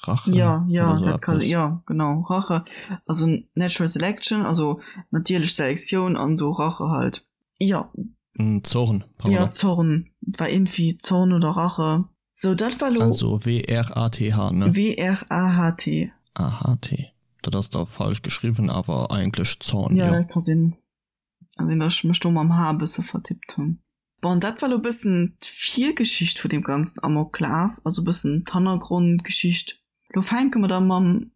Rache Jo, jo, oder sou dat ka, eppes. jo, genau, Rache, also Natural Selection, also natierlech Selektioun an sou Rache halt, jo. Zorn, pardon. Jo, Zorn, et war iergendwéi Zorn oder Rache. Sou, dat war lo. Also W-R-A-T-H, ne? W-R-A-H-T. A-H-T. Dat ass da falsch geschriwwen, awer eigentlech Zorn, jo. Jo, dat ka sinn. Ka sinn, datt ech mech do mam H e bësse vertippt hunn. Bon, dat war lo e bëssen d'Virgeschicht vun deem ganzen Amoklaf, also e bëssen d'Hannergrondgeschicht. Lo fänke mer da mam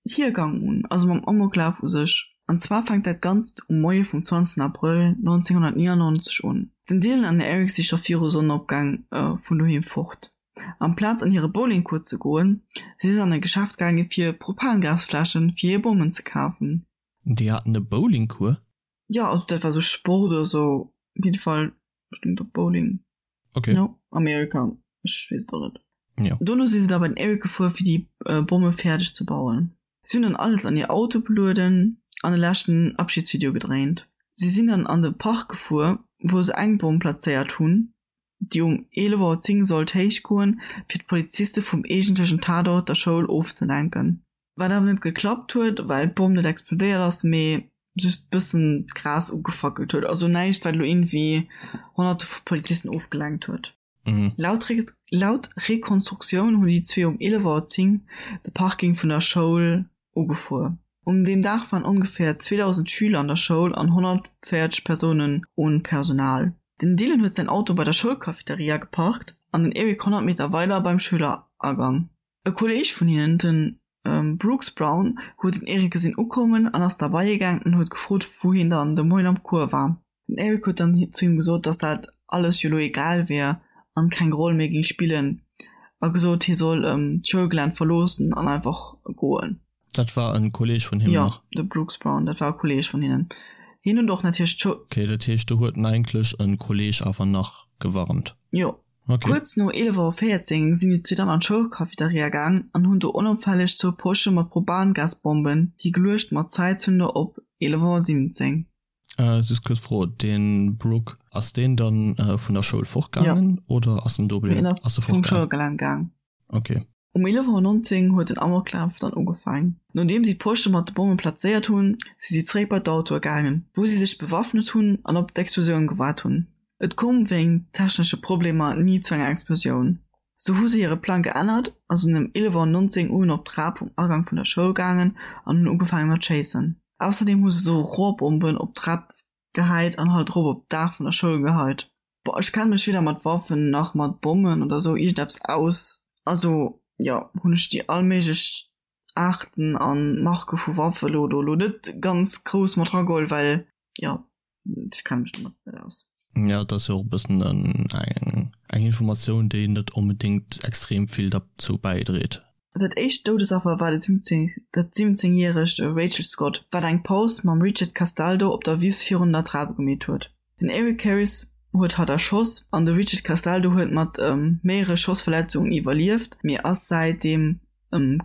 Hiergang un, also mam Amoklaf u sech. An zwar fänkt dat Ganzt um Moie vum 20 Abrëll 1999 un. Den Dylan an den Eric si scho viru Sonnenopgang vun doheem fort. Amplaz an hire Bowlingcours ze goen, si se an e Geschäft gaange fir Propangasfläschen fir hir Bommen ze kafen. Déi haten e Bowlingcours? Jo, also dat war sou Sport oder sou. Op jidde Fall stung do Bowling. Okay. Jo, Amerika, ech weess et och net. Jo. Dono si se da bei den Eric gefuer fir déi Bomme fäerdeg ze bauen. Si hunn dann alles an hir Auto belueden an e leschten Abschiedsvideo gedréint. Si sinn dann an de Park gefuer, wou se eng Bomm plazéiert hunn, déi um 11 Auer 10 sollt héich goen, fir d'Poliziste vum eegentlechen Tatort, der Schoul, ofzelenken. Wat awer net geklappt huet, well d'Bomm net explodéiert ass, mee just bëssen d'Gras ugefackelt huet. Also näischt, wat elo iergendwéi Honnerte vu Polizisten ofgelenkt huet. Laut Laut Rekonstruktioun hunn déi zwee um 11 Auer 10 de Parking vun der Schoul ugefuer. Um deem Dag waren ongeféier 2.000 Schüler an der Schoul an 140 Persounen un Personal. Den Dylan huet säin Auto bei der Schoulcafeteria geparkt an den Eric 100 Meter weider beim Schüleragang. E Kolleeg vun hinnen, de Brooks Brown, huet den Eric gesinn ukommen an ass derbei gaang an huet gefrot, wou hien dann de Moien am Cours war. Den Eric huet dann zu him gesot, dass dat alles jo lo egal wier an keng Roll méi géing spillen a gesot, hie soll d'Schoulgelänn verloossen an einfach goen. Dat war e Kolleeg vun him nach? Jo, de Brooks Brown, dat war e Kolleeg vun hinnen. Hien huet och natierlech d'Schoul. Ok, dat heescht, do huet en eigentlech e Kolleeg awer nach gewarnt? Jo. Ok. Kuerz no 11 Auer 14 sinn déi zwee dann an d'Schoulcafeteria gaang an hunn do onopfälleg zwou Posche mat Propangasbomben higeluecht mat Zäitzünder op 11 Auer 17. Just kuerz Fro, deen Brooke, ass deen dann vun der Schoul fortgaangen oder ass en do bliwwen? Hien ass vum Schoulgelänn gaang. Ok. Um 11 Auer 19 huet den Amoklaf dann ugefaang. Nodeem si d'Posche mat de Bomme plazéiert hunn, si si zeréck bei d'Autoe gaangen, wou si sech bewaffnet hunn an op d'Explosioun gewaart hunn. Et koum wéingt technesche Problemer ni zu enger Explosioun. Sou hu se hire Plang geännert a sinn ëm 11 Auer 19 un op d'Trap vum Agang vun der Schoul gaangen an hunn ugefaange mat schéissen. Ausserdeem hu se sou Rohrbomben op d'Trap gehäit an halt erop op d'Daach vun der Schoul geheit. Boah, ech kenne mech weder mat Waffen nach mat Bommen oder sou iergendeppes aus. Also jo, hunn ech déi all méiglech Aarten a Marke vu Waffe lo do lo net ganz grouss mat rageholl, well jo, ech kenne mech domat net aus. Jo, et ass jo och e bëssen eng Informatioun, déi net onbedéngt extrem vill derzou bäidréit. Dat éischt Doudesaffer war dat 17 järegt Rachel Scott, wat eng Paus mam Richard Castaldo op der Wiss virun der Trap gemeet huet. Den Eric Harris huet hatt erschoss an de Richard Castaldo huet mat méiere Schossverletzungen iwwerlieft, mee ass säitdeem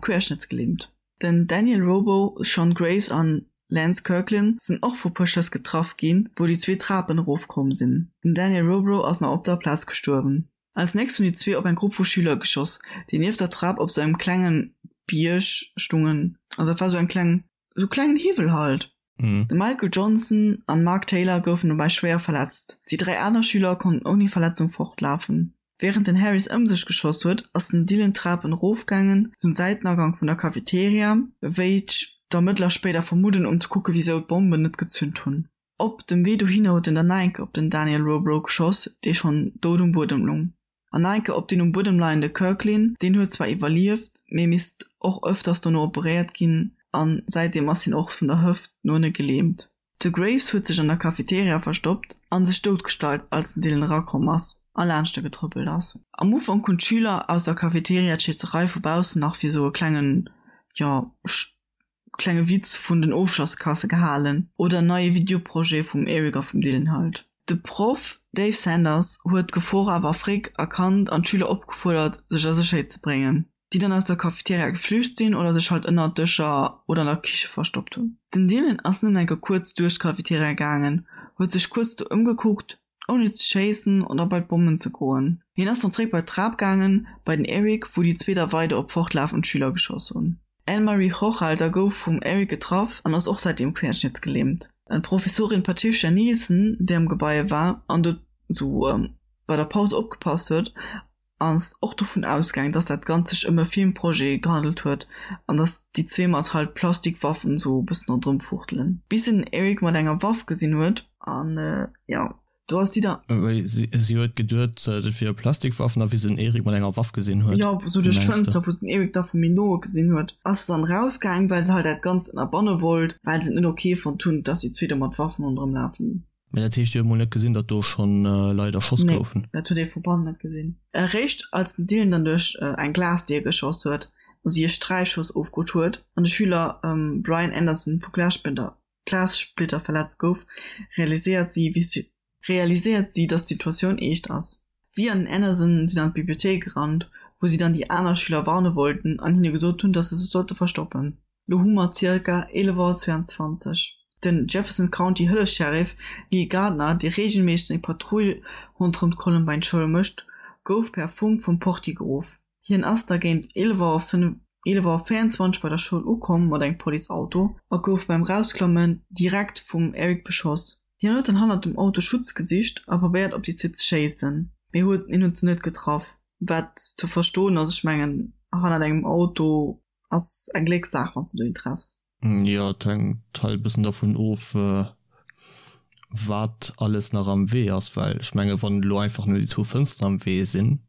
querschnëttsgelähmt. Den Daniel Robo, Sean Graves an Lance Kirklin sinn och vu puer Schëss getraff ginn, wou déi zwee Trapen erofkomm sinn. Den Daniel Robo ass nach op der Plaz gestuerwen. Als nächst hunn déi zwee op eng Grupp vu Schüler geschoss, déi nieft der Trap op sou engem klenge Bierg stungen. Also dat war sou eng kleng, sou klengen Hiwwel halt. De Michael Johnson an Mark Taylor goufen dobäi schwéier verletzt. Déi 3 aner Schüler konnten ouni Verletzung fortlafen. Wärend den Harris ëm sech geschoss huet, ass den Dylan d'Trapen erofgaangen, zum Säitenagank vun der Cafeteria, wéi d'Ermëttler spéider vermudden, um ze kucke wisou d'Bommen net gezünt hunn. Op dem Wee dohinner huet en dann nach eng Kéier op den Daniel Robrow geschoss, dee schonn dout um Buedem lung. An nach eng Kéier op deen um Buedem leiende Kirklin, deen huet zwar iwwerlieft, mee misst och ëfters dono operéiert ginn a säitdeem ass hien och vun der Hëft no ënne gelähmt. De Graves huet sech an der Cafeteria verstoppt a sech doutgestallt als den Dylan erakomm ass a laanscht e getrëppelt ass. Am Ufank hunn d'Schüler aus der Cafeteria d'Schéisserei vu baussen nach fir sou e klengen, jo, klenge Witz vun den Ofschlosskasse gehalen oder en neie Videoprojet vum Eric a vum Dylan halt. De Proff Dave Sanders huet d'Gefor awer fréck erkannt an d'Schüler opgefuerdert sech a Sécherheet ze bréngen, déi dann aus der Cafeteria geflücht sinn oder sech halt ënner Dëscher oder an der Kiche verstoppt hunn. Den Dylan ass nëmmen eng Kéier kuerz duerch d'Cafeteria gaangen, huet sech kuerz do ëmgekuckt, ouni ze schéissen oder bei d'Bommen ze goen. Hien ass dann zréck bei d'Trap gaangen, bei den Eric, wou déi zwee da weider op fortlafend Schüler geschoss hunn. D'Anne-Marie Hochhalter gouf vum Eric getraff an ass och säitdeem querschnittsgelähmt. D'Professorin Patricia Nielsen, déi am Gebai war an do sou bei der Paus opgepasst huet, ass och dovun ausgaang, dass dat Ganzt sech ëm e Filmprojet gehandelt huet an dass déi zwee mat halt Plastikwaffen sou e bëssen ronderëm fuchtelen, bis se den Eric mat enger Waff gesinn huet an jo, do ass si da. Wéi si huet geduet, dat wiere Plastikwaffen a wéi se den Eric mat enger Waff gesinn huet. Jo, sou duerch d'Fënster, wou se den Eric da vu méi no gesinn huet, ass se dann erausgaang, well se halt dat Ganzt ënnerbanne wollt, well se et net ok fonnt hunn, dass déi zwee do mat Waffen ronderëm lafen. Mee dat heescht, dir hutt mol net gesinn, datt do schonn Leit erschoss goufen? Nee, dat huet ee vu bannen net gesinn. Eréischt als den Dylan dann duerch eng Glasdier geschoss huet a si e Sträichschoss ofkrut huet an de Schüler Brian Anderson vu Glassplitter verletzt gouf, realiséiert si, realiséiert si, datt d'Situatioun eescht ass. Si an den Anderson sinn an d'Bibliothéik gerannt, wou si dann déi aner Schüler warne wollten an hinne gesot hunn, datt se sech sollte verstoppen. Lo hu mer zirka 11 Auer 22. Den Jefferson County Hëllefs-Sheriff Lee Gardner, dee reegelméisseg seng Patrull ronderëm d'Columbine Schoul mécht, gouf per Funk vum Portier geruff. Hien ass da géint 11 Auer 11 Auer 24 bei der Schoul ukomm mat engem Policeauto a gouf beim Rausklammen direkt vum Eric beschoss. Hien huet dann hannert dem Auto Schutz gesicht a probéiert op déi zwee ze schéissen, mee huet hien huet se net getraff, wat ze verstoen ass. Ech mengen hannert engem Auto Ass eng Gléckssaach wanns de do een treffs. Jo, et hänkt halt e bëssen dervun of wat alles nach am Wee ass, well ech menge wann elo einfach nëmmen déi zwou Fënsteren am Wee sinn,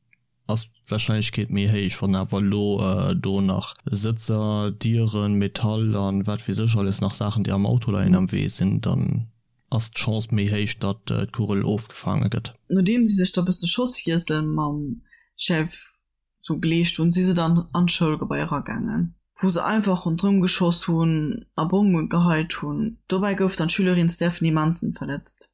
ass d'Warscheinlechkeet méi héich. Wann awer elo do nach Sëtzer, Dieren, Metall an wat weess ech alles nach Saachen déi am Auto leien am Wee sinn, dann ass d'Chance méi héich datt d'Kugel ofgefaange gëtt. Nodeem si sech da bësse Schosswiessel mam Chef sou geleescht hunn, si se dann an d'Schoulgebai eragaangen, wou se einfach ronderëm geschoss hunn a Bomme geheit hunn. Dobäi gouf dann d'Schülerin Stephanie Manson verletzt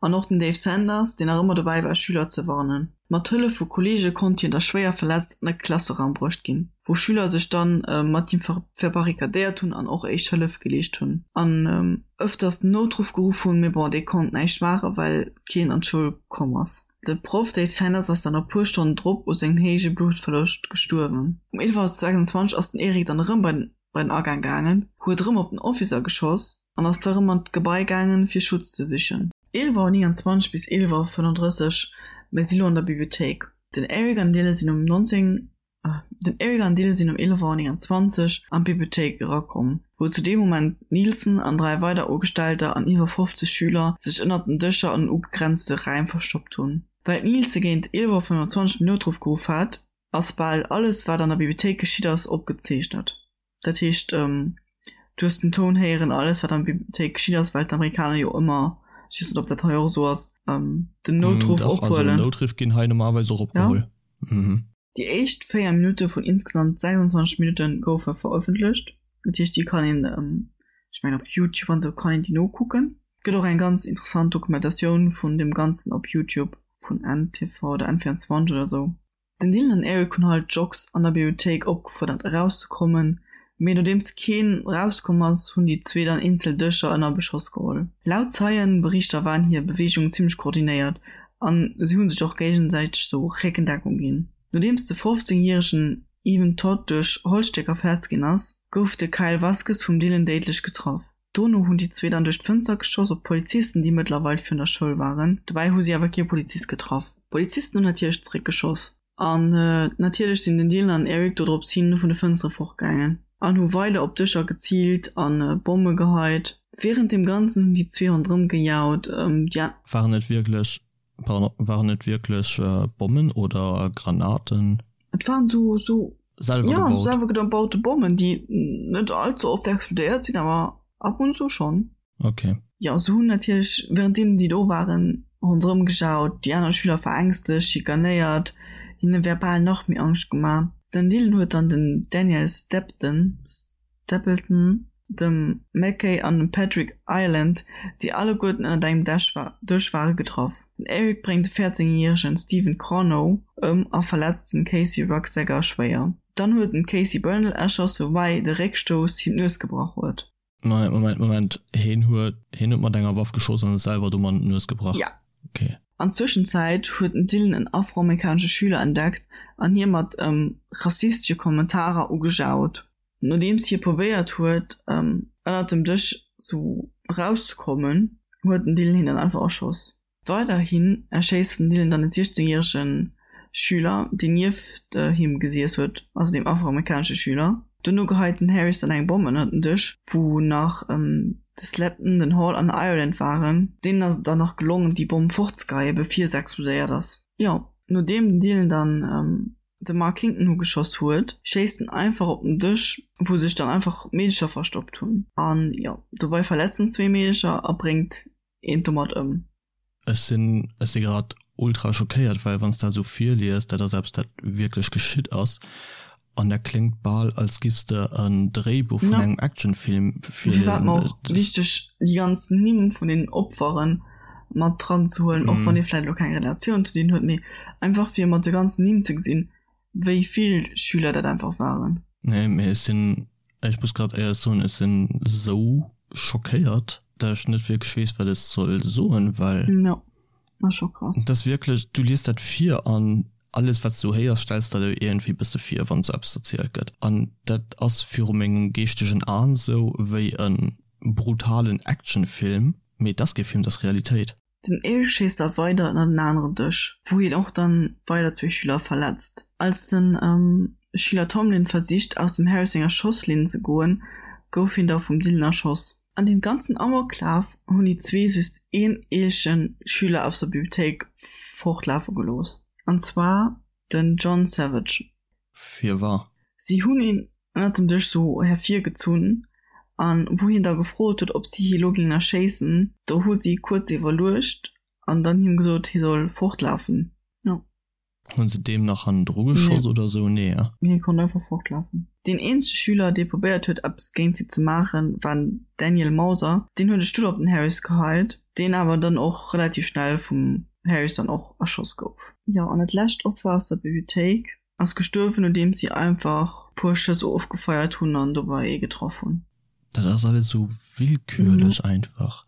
an och den Dave Sanders, deen nach ëmmer dobäi war Schüler ze warnen. Mat Hëllef vu Kolleege konnt hien da schwéier verletzt an e Klasseraum bruecht ginn, wou Schüler sech dann mat him verbarrikadéiert hunn an och éischt Hëllef geleescht hunn an ëfters den Noutruff geruff hunn, mee bon, dee konnt näischt maachen, well keen an d'Schoul komm ass. De Proff Dave Sanders ass dann e puer Stonnen drop u sengem héije Bluttverloscht gestuerwen. Um 11.26 Auer ass den Eric dann erëm bei den Agaang gaangen, huet erëm op den Officer geschoss an ass da erëm an d'Gebai gaangen, fir Schutz ze sichen. 11.29 Auer bis 11.35 Auer, Mir si lo an der Bibliothéik. Den Eric an Dylan sinn um 19. Den Eric an Dylan sinn um 11 Auer 29 an d'Bibliothéik erakomm, wou zu deem Moment d'Nielsen an 3 weider Ugestellter an iwwer 50 Schüler sech ënnert den Dëscher an den ugegrenzte Räim verstoppt hunn. Well d'Nielsen géint 11 Auer 25 den Noutruff geruff hat, ass bal alles wat an der Bibliothéik geschitt ass opgezeechnet. Dat heescht, du hues den Toun héieren, alles wat an der Bibliothéik geschitt ass, well d'Amerikaner jo ëmmer, ech weess net ob dat hei och esou ass, den Noutruff Dach, also ophuelen. Noutriff ginn hei normalerweis och opgeholl. Ja. Déi éischt 4 Minutte vun insgesamt 26 Minutte goufe verëffentlecht. Dat heescht, déi kann een, ech mengen op Youtube an esou kann een déi nokucken. Et gëtt och eng ganz interessant Dokumentatioun vun deem Ganzen op Youtube vun NTV oder N24 oder esou. Den Dylan an Eric hunn halt d'Jocks an der Bibliothéik opgefuerdert erauszekommen, mee nodeems keen erauskomm ass, hunn déi zwee dann eenzel Dëscher ënner Beschoss geholl. Laut Zeienberichter waren hir Beweegungen zimmlech koordinéiert an si hunn sech och géigesäiteg sou Réckendeckung ginn. Nodeems de 15 järegen Evan Todd duerch Holzstécker verletzt ginn ass, gouf de Kyle Vasquez vum Dylan déidlech getraff. Dono hunn déi zwee dann duerch d'Fënster geschoss op d'Polizisten, déi mëttlerweil virun der Schoul waren. Dobäi hu si awer kee Polizist getraff. D'Polizisten hunn natierlech zeréckgeschoss. An natierlech sinn den Dylan an Eric dodrops hin vun de Fënstere fortgaangen an hu weider op Dëscher geziilt a Bomme geheit. Wärend deem Ganzen hunn déi zwee ronderëm gejaut. Déi an. Waren et wierklech, pardon, waren et wierklech Bommen oder Granaten? Et waren sou, sou, Selwer ja, gebaut? selwer gebaute Bommen, déi net all ze oft explodéiert sinn, awer ab und zu schonn. Ok. Jo, se hunn natierlech wärenddeem déi do waren ronderëm gejaut, déi aner Schüler verängstegt, schikanéiert, hinne verbal nach méi Angscht gemaach. Den Dylan huet dann den Daniel Stepton, Stapleton, dem Mackay an dem Patrick Ireland, déi alleguerten ënnert engem Dësch ware, getraff. Den Eric bréngt de 14 järegen Stephen Corno ëm a verletzt den Casey Rucksacker schwéier. Dann huet en d'Casey Bernal erschoss, woubäi de Réckstouss him d'Nues gebrach huet. Moment, Moment, Moment, heen huet, heen huet mat enger Waff geschoss an sech selwer domat d'Nues gebrach? Ja. Okay. An Zwëschenzäit huet den Dylan en afroamerikanesche Schüler entdeckt an hie mat rassistesche Kommentarer ugejaut. Nodeems hie probéiert huet, ënnert dem Dësch sou erauszekommen, huet den Dylan hien dann einfach erschoss. Weiderhin erschéisst den Dylan dann e 16 järege Schüler, deen nieft him gesiess huet, also deem afroamerikanesche Schüler. Dono geheit den Harris dann eng Bomm ënnert den Dësch, wou nach de Slepton, den Hall an den Ireland waren. Deenen ass et dann nach gelongen, déi Bomm fortzegeheien, bevir se explodéiert ass. Jo, nodeem den Dylan dann de Mark Kington ugeschoss huet, schéisst en einfach op den Dësch, wou sech dann einfach Meedecher verstoppt hunn. An jo, dobei verletzt en zwee Meedecher a bréngt eent domat ëm. Ech sinn, ech si grad ultra schockéiert, well wann s dat esou virliest, dat ass eppes, dat wierklech geschitt ass, an dat kléngt bal, als giffs de en Dréibuch vun engem Actionfilm virliesen. Dofir war et mer och wichteg, déi ganz Nimm vun den Opferen mat dran ze huelen, och wann ee vläicht elo keng Relatioun zu deenen huet, mee einfach fir mat de ganzen Nimm ze gesinn, wéi vill Schüler dat einfach waren. Nee, mee ech sinn, ech muss grad éierlech soen, ech sinn esou schockéiert, dat ech net wierklech weess, wat ech soll soen, well. Jo, ass scho krass. Et ass wierklech, du liest dat vir an alles, wat s du héiers, stells der der iergendwéi bësse vir, wann esou eppes erzielt gëtt. An dat ass viru mengem geeschtegen Aen esou wéi e brutalen Actionfilm, mee et ass kee Film, et ass Realitéit. Den Eric schéisst da weider ënner den aneren Dësch, wou hien och dann weider zwee Schüler verletzt. Als den Schüler Tomlin versicht aus dem Harris senger Schosslinn ze goen, gouf hien da vum Dylan erschoss. An deem ganzen Amoklaf hunn déi zwee just een eelchen Schüler aus der Bibliothéik fortlafe gelooss, an zwar den John Savage. Firwar? Si hunn een ënnert dem Dësch sou hervirgezunn an wou hien da gefrot huet, ob si hie lo géingen erschéissen, do hu si kuerz iwwerluecht an dann him gesot, hie soll fortlafen. Jo. Hunn se deem nach hannendru geschoss oder sou? Nee, eh? Hie konnt einfach fortlafen. Deen eenzege Schüler, dee probéiert huet, eppes géint si ze maachen, war den Daniel Mauser. Deen huet e Stull op den Harris geheit, deen awer dann och relativ schnell vum Harris dann och erschoss gouf. Jo, an dat lescht Opfer aus der Bibliothéik ass gestuerwen, nodeems si einfach puer Schëss ofgefeiert hunn an dobei ee getraff hunn. Dat ass alles esou willkürlech einfach.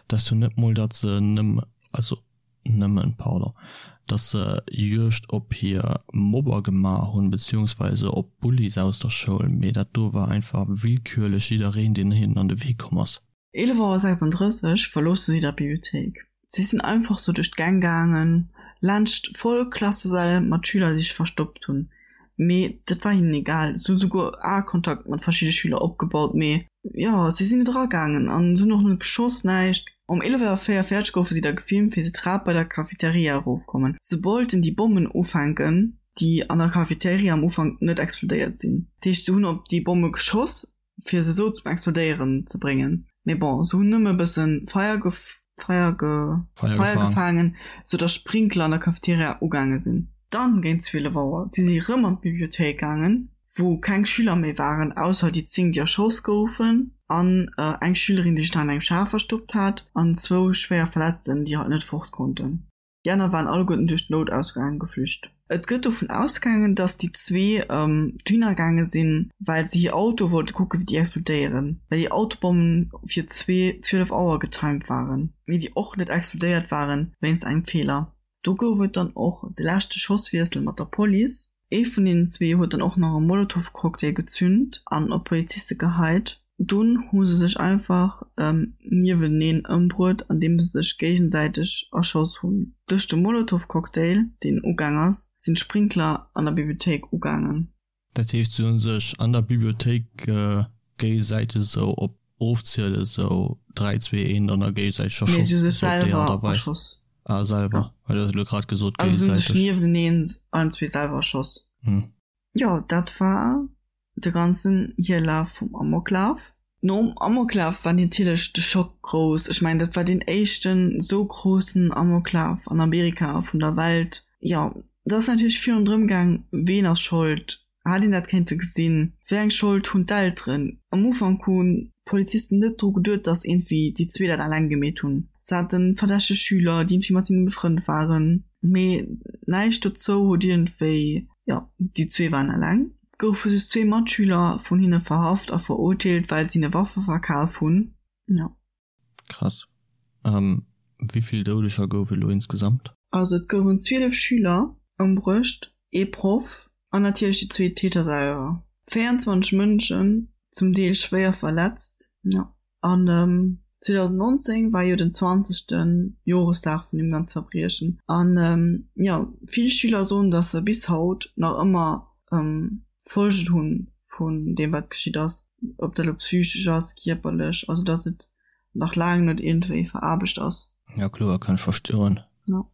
Dat ass jo net mol, datt se nëmme, also nëmmen, pardon, datt se Juegd op hir Mobber gemaach hunn, beziehungsweise op Bullies aus der Schoul, mee dat do war einfach willkürlech jiddereen, deen hinnen an de Wee komm ass. 11 Auer 36 verloosse si der Bibliothéik. Si sinn einfach sou duerch d'Gäng gaangen, laanscht voll Klassesäll mat Schüler, déi sech verstoppt hunn. Mee dat war hinnen egal. Si hu souguer Aekontakt mat verschidde Schüler opgebaut, mee jo, si sinn net eragaangen an se hunn och net geschoss, näischt. Um 11 Auer 44 goufe si da gefilmt, wéi se d'Trap bei der Cafeteria erofkommen. Se wollten déi Bommen ufänken, déi an der Cafeteria am Ufank net explodéiert sinn. Dat heescht, se hunn op déi Bomme geschoss, fir se sou zum Explodéieren ze bréngen. Mee bon, se hunn nëmme e bëssen Feier Feier Feier gefaangen, sou dass Sprinkler an der Cafeteria ugaange sinn. Dann géint 12 Auer si si rëm an d'Bibliothéik gaangen, wou keng Schüler méi waren, ausser déi 10, déi erschoss goufen, an eng Schülerin, déi sech nach an engem Schaf verstoppt hat, an zwou schwéier Verletzten, déi halt net fort konnten. Déi aner waren alleguerten duerch d'Noutausgaang geflücht. Et gëtt dovun ausgaangen, datt déi zwee dohinner gaange sinn, well se hir Autoe wollte kucken, wéi déi explodéieren, well déi Autobommen fir 12 Auer getimed waren, mee déi och net explodéiert waren wéinst engem Feeler. Do gouf et dann och de leschte Schosswiessel mat der Police. Ee vun deenen zwee huet dann och nach e Molotow-Cocktail gezünt an op Poliziste geheit. Dunn hu se sech einfach nieweneen ëmbruet, andeem se sech géigesäiteg erschoss hunn. Duerch de Molotowcocktail, deen ugaang ass, sinn d'Sprinkler an der Bibliothéik ugaangen. Dat heescht, se hu sech an der Bibliothéik géigesäiteg esou op Ofziele sou 3, 2, 1 an da géigesäiteg erschoss? Nee, se hu sech selwer erschoss. Ah, selwer. Well du hues elo grad gesot géigesäiteg. Also se hu sech nieweneen allen zwee selwer erschoss. Jo, dat war de ganzen Hierlaf vum Amoklaf. Nom Amoklaf war natierlech de Schock grouss. Ech mengen, dat war deen éischten esou groussen Amoklaf an Amerika, vun der Welt. Jo, et ass natierlech vill ronderëm gaang, ween ass Schold, hat een dat kéinte gesinn, wéi eng Schold hunn d'Elteren. Am Ufank hunn d'Polizisten net dru geduet, datt iergendwéi déi zwee dat eleng gemeet hunn. Se hate verdächteg Schüler, déi iergendwéi mat hinne befrënnt waren, mee näischt dozou huet iergendwéi, jo, déi zwee waren eleng. Goufe just zwee Matschüler vun hinne verhaft a verurteelt, well se hinne Waffe verkaf hunn. Jo. Krass. Wéi vill Doudeger gouf et elo insgesamt? Also et goufen 12 Schüler ëmbruecht, ee Proff an natierlech déi zwee Täter selwer. 24 Mënschen, zum Deel schwéier verletzt. Jo. An 2019 war jo den 20. Joresdag vun deem ganze Verbriechen. An jo, vill Schüler soen, datt se bis haut nach ëmmer Folgen hu vun deem, wat geschitt ass. Ob dat elo psychesch ass, kierperlech, also datt et nach laang net iergendwéi veraarbecht ass. Jo kloer, kann ech verstoen.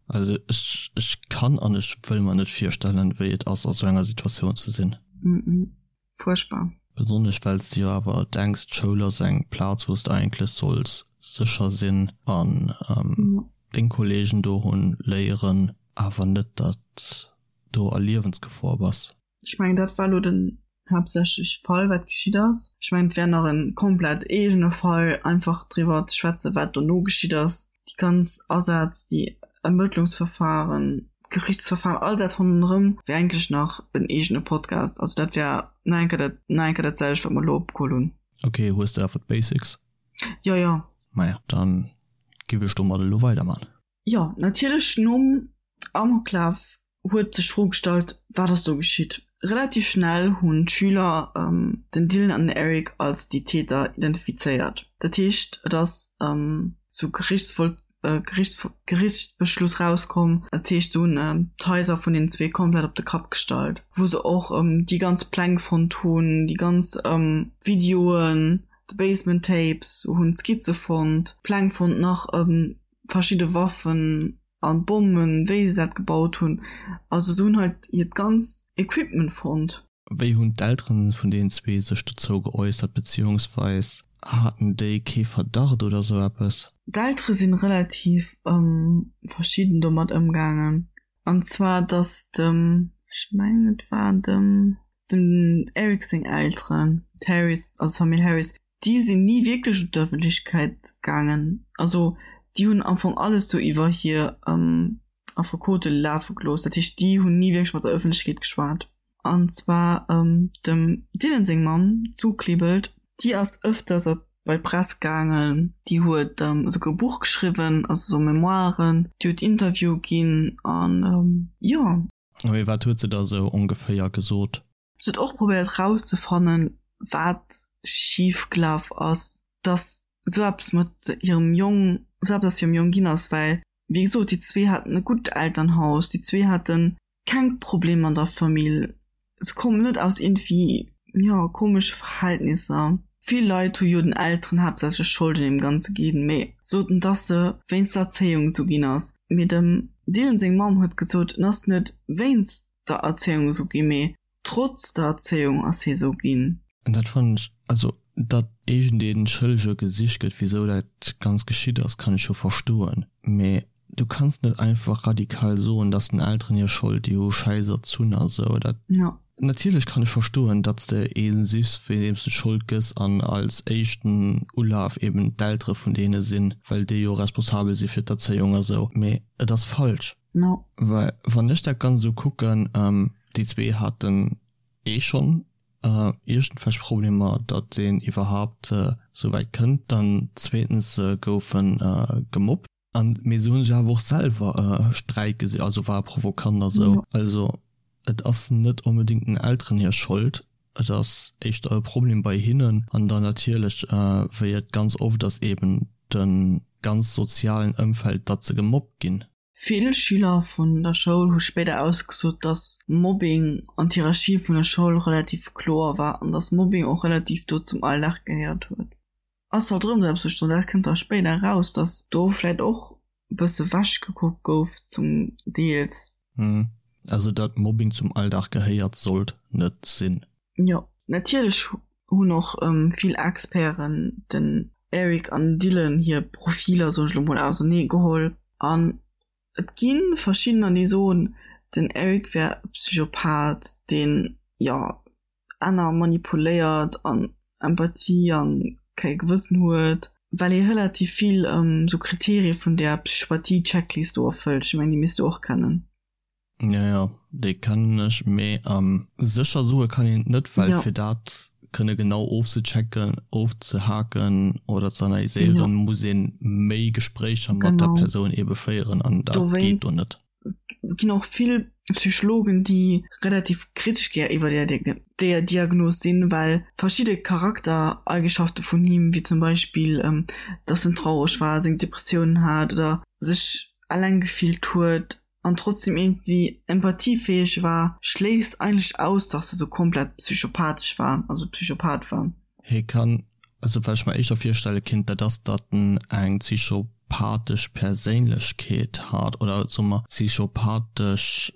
Also ech ech kann an ech wëll mer net virstellen, wéi et ass a sou enger Situatioun ze sinn. Fuerchtbar. Besonnesch well s de jo awer denks, d'Schoul ass eng Plaz, wou s de eigentlech solls sécher sinn an deng Kollegen do hunn, léieren, awer net, datt do a Liewensgefor bass. Ech mengen, dat war elo den haaptsächlech Fall, wat geschitt ass. Ech mengen, et wär nach e komplett eegene Fall, einfach driwwer ze schwätzen, wat dono geschitt ass. déi ganz Asätz, déi Ermëttlungsverfahren, d'Gerichtsverfahren, all dat ronderëm wär eigentlech nach en eegene Podcast. Also dat wär nach eng Kéier dat, nach eng Kéier dat selwecht, wat mer elo opgeholl hunn. Ok, hues de awer d'Basics? Jo, jo. Maja, dann giff ech domat elo weiderman. Jo, natierlech nom Amoklaf huet sech d'Fro gestallt, Wat ass do geschitt? Relativ schnell hunn d'Schüler den Dylan an den Eric als déi Täter identifizéiert. Dat heescht, et ass zu Gerichtsbeschluss rauskomm. Dat heescht, se hunn d'Haiser vun den zwee komplett op de Kapp gestallt, wou se och déi ganz Pläng fonnt hunn, déi ganz Videoen, d'Basement Tapes, hunn Skizze fonnt, Pläng fonnt, nach verschidde Waffen an Bommen, wéi se dat gebaut hunn. Also se hunn halt hiert ganz Equipment fonnt. Wéi hunn d'Elteren vun deenen zwee sech dozou geäussert, beziehungsweis haten déi kee Verdacht oder sou eppes? D'Eltere sinn relativ verschidden domat ëmgaangen. An zwar dass dem, ech mengen et war dem, dem Eric seng Elteren, d'Harris, also d'Famill Harris, déi sinn ni wierklech un d'Ëffentlechkeet gaangen. Also déi hunn am Fong alles sou iwwer hir Affekote lafe gelooss. Dat heescht, déi hunn ni wierklech mat der Ëffentlechkeet geschwat. An zwar dem Dylan seng Mamm, d'Sue Klebold, déi ass ëfters op bei d'Press gaangen. Déi huet esouguer e Buch geschriwwen, also sou Memoiren. Déi huet Interviewe ginn an jo. Mee wat huet se da sou ongeféier gesot? Se huet och probéiert rauszefannen, wat schif gelaf ass, dass esou eppes mat hirem Jong, esou eppes aus hirem Jong ginn ass, well wéi gesot, déi zwee haten e gutt Elternhaus, déi zwee hate keng Problemer an der Famill, se kommen net aus iergendwéi, jo, komesche Verhältnisser. Vill Leit hu jo den Elteren haaptsächlech d'Schold un deem Ganze ginn, mee soten, dass se wéinst der Erzéiung esou ginn ass. Mee dem Dylan seng Mamm huet gesot, en ass net wéinst der Erzéiung esou ginn, mee trotz der Erzéiung ass hie sou ginn. An dat fannen ech, also datt iergendee Schëllege gesicht gëtt, wisou dat Ganzt geschitt ass, kann ech jo verstoen, mee du kanns net einfach radikal soen, datt den Elteren hir Schold, déi hu schäiss erzunn a sou. Dat, natierlech kann ech verstoen, datt s de ee sichs, fir deem s de d'Schold gëss an als éischten Ulaf eben d'Eltere vun deene sinn, well déi jo responsabel si fir d'Erzéiung a sou, mee et ass falsch. No. Well wann ech dat Ganzt esou kucken, déi zwee haten eh schonn iergendwelch Problemer, datt een iwwerhaapt esou wäit kënnt. Dann zweetens se goufe gemobbt. An mee se hu sech awer och selwer Sträit gesi, also war provokant a sou. Also et ass net onbedéngt den Elteren hir Schold. Et ass éischter e Problem bei hinnen an dann natierlech, wéi et ganz oft ass, eben de ganz sozialen Ëmfeld, datt se gemobbt ginn. Vill Schüler vun der Schoul hu spéider ausgesot, datt Mobbing an d'Hierarchie vun der Schoul relativ kloer war an datt Mobbing och relativ do zum Alldag gehéiert huet. Ass halt rëm esou eppes wou ech soen, dat kënnt da spéider eraus, datt do vläit och e bësse wech gekuckt gouf zum Deels. Also datt Mobbing zum Alldag gehéiert sollt net sinn. Jo, natierlech hunn och vill Experten den Eric an Dylan hir Profiler, soen ech elo mol, ausernee geholl an et gi verschiddener déi soen, den Eric wär e Psychopath, deen, jo, aner manipuléiert an Empathie an kei Gewëssen huet, well hie relativ vill sou Kriterie vun där Psychopathie-Checklist do erfëllt. Ech mengen, déi misst du och kennen. Jo, jo, déi kennen ech, mee sécher soe kann een et net, well fir dat kënne genau ofzechecken, ofzehaken oder ze analyséieren, muss ee méi Gespréicher mat der Persoun eebe féieren an dat geet do net. Et ginn och vill Psychologen, déi relativ kritesch gär iwwer déi Diagnos sinn, well verschidde Charaktereigenschafte vun him, wéi zum Beispill, dass en traureg war, seng Depressiounen hat oder sech eleng gefillt huet an trotzdem iergendwéi empathiefäeg war, schléisst eigentlech aus, dass e sou komplett psychopathesch war, also Psychopath war. Hie kann, also wat ech mer éischter virstelle kinnt, dat ass, datt en eng psychopathesch Perséinlechkeet hat oder soe mer psychopathesch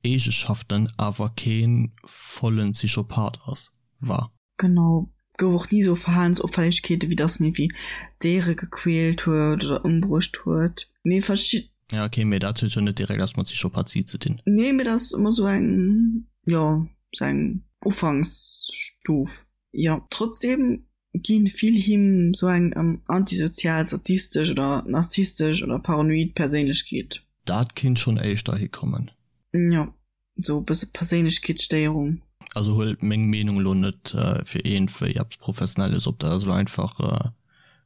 Eegeschaften, awer kee vollen Psychopath ass, war. Genau, gouf och ni sou Verhalensopfällegkeete wéi dass en iergendwéi Déiere gequält huet oder ëmbruecht huet, mee verschid. Ja ok, mee dat huet jo net direkt eppes mat Psychopathie ze dinn. Nee, mee dat ass ëmmer sou eng, jo, sou eng Ufanksstuf. Jo, trotzdeem gi vill him sou eng antisozial, sadistesch oder narzisstesch oder paranoid Perséinlechkeet. Dat kinnt schonn éischter hikommen. Jo. Sou e bësse Perséinlechkeetsstéierung. Also huelt meng Meenung elo net fir iergendwéi eppes Professionelles op, dat ass elo einfach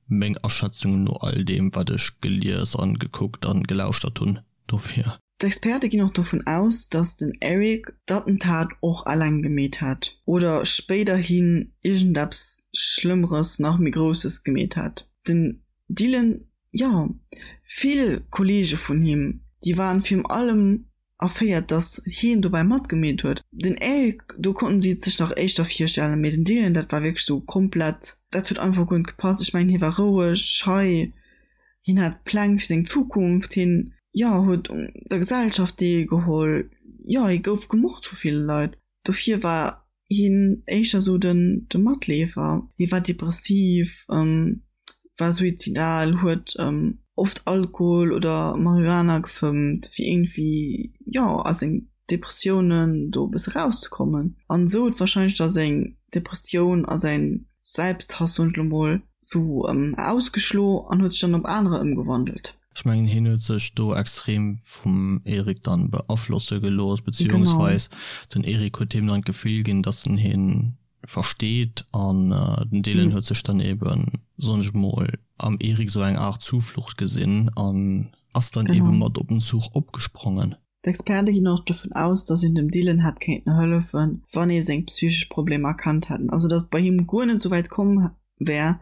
meng Aschätzung no all deem wat ech gelies an gekuckt an gelauschtert hunn dofir. D'Experte ginn och dovun aus, datt den Eric d'Attentat och eleng gemeet hätt oder spéiderhin iergendeppes Schlëmmeres, nach méi Grousses gemeet hätt. Den Dylan, jo, vill Kolleege vun him, déi waren virm allem erféiert, dass hien dobäi matgemeet huet. Den Eric, do konnten si et sech nach éischter virstellen, mee den Dylan, dat war wierklech sou komplett, dat huet einfach guer net gepasst. Ech mengen, hie war roueg, schei, hien hat Pläng fir seng Zukunft, hien, jo, huet un der Gesellschaft deelgeholl, jo, hie gouf gemocht vu ville Leit. Dofir war hien éischter sou den de Matleefer. Hie war depressiv, war suizidal, huet oft Alkohol oder Marihuana gefëmmt, fir iergendwéi, jo, aus seng Depressiounen do e bësse rauszekommen. An esou huet warscheinlech da seng Depressioun a säin Selbsthass, soen ech elo mol, sou ausgeschlo an huet sech dann op anerer ëmgewandelt. Ech mengen hien huet sech do extrem vum Eric dann beaflosse gelooss, beziehungsweis den Eric huet him dann d'Gefill ginn, dass en hien versteet an den Dylan huet sech dann eben, soen ech mol, am Eric sou eng Art Zuflucht gesinn an ass dann eben mat op den Zuch opgesprongen. D'Experte ginn och dovun aus, datt een dem Dylan hätt kéinten hëllefen, wann ee seng psychesch Problemer erkannt hätten. Also datt et bei him guer net esou wäit komm wär,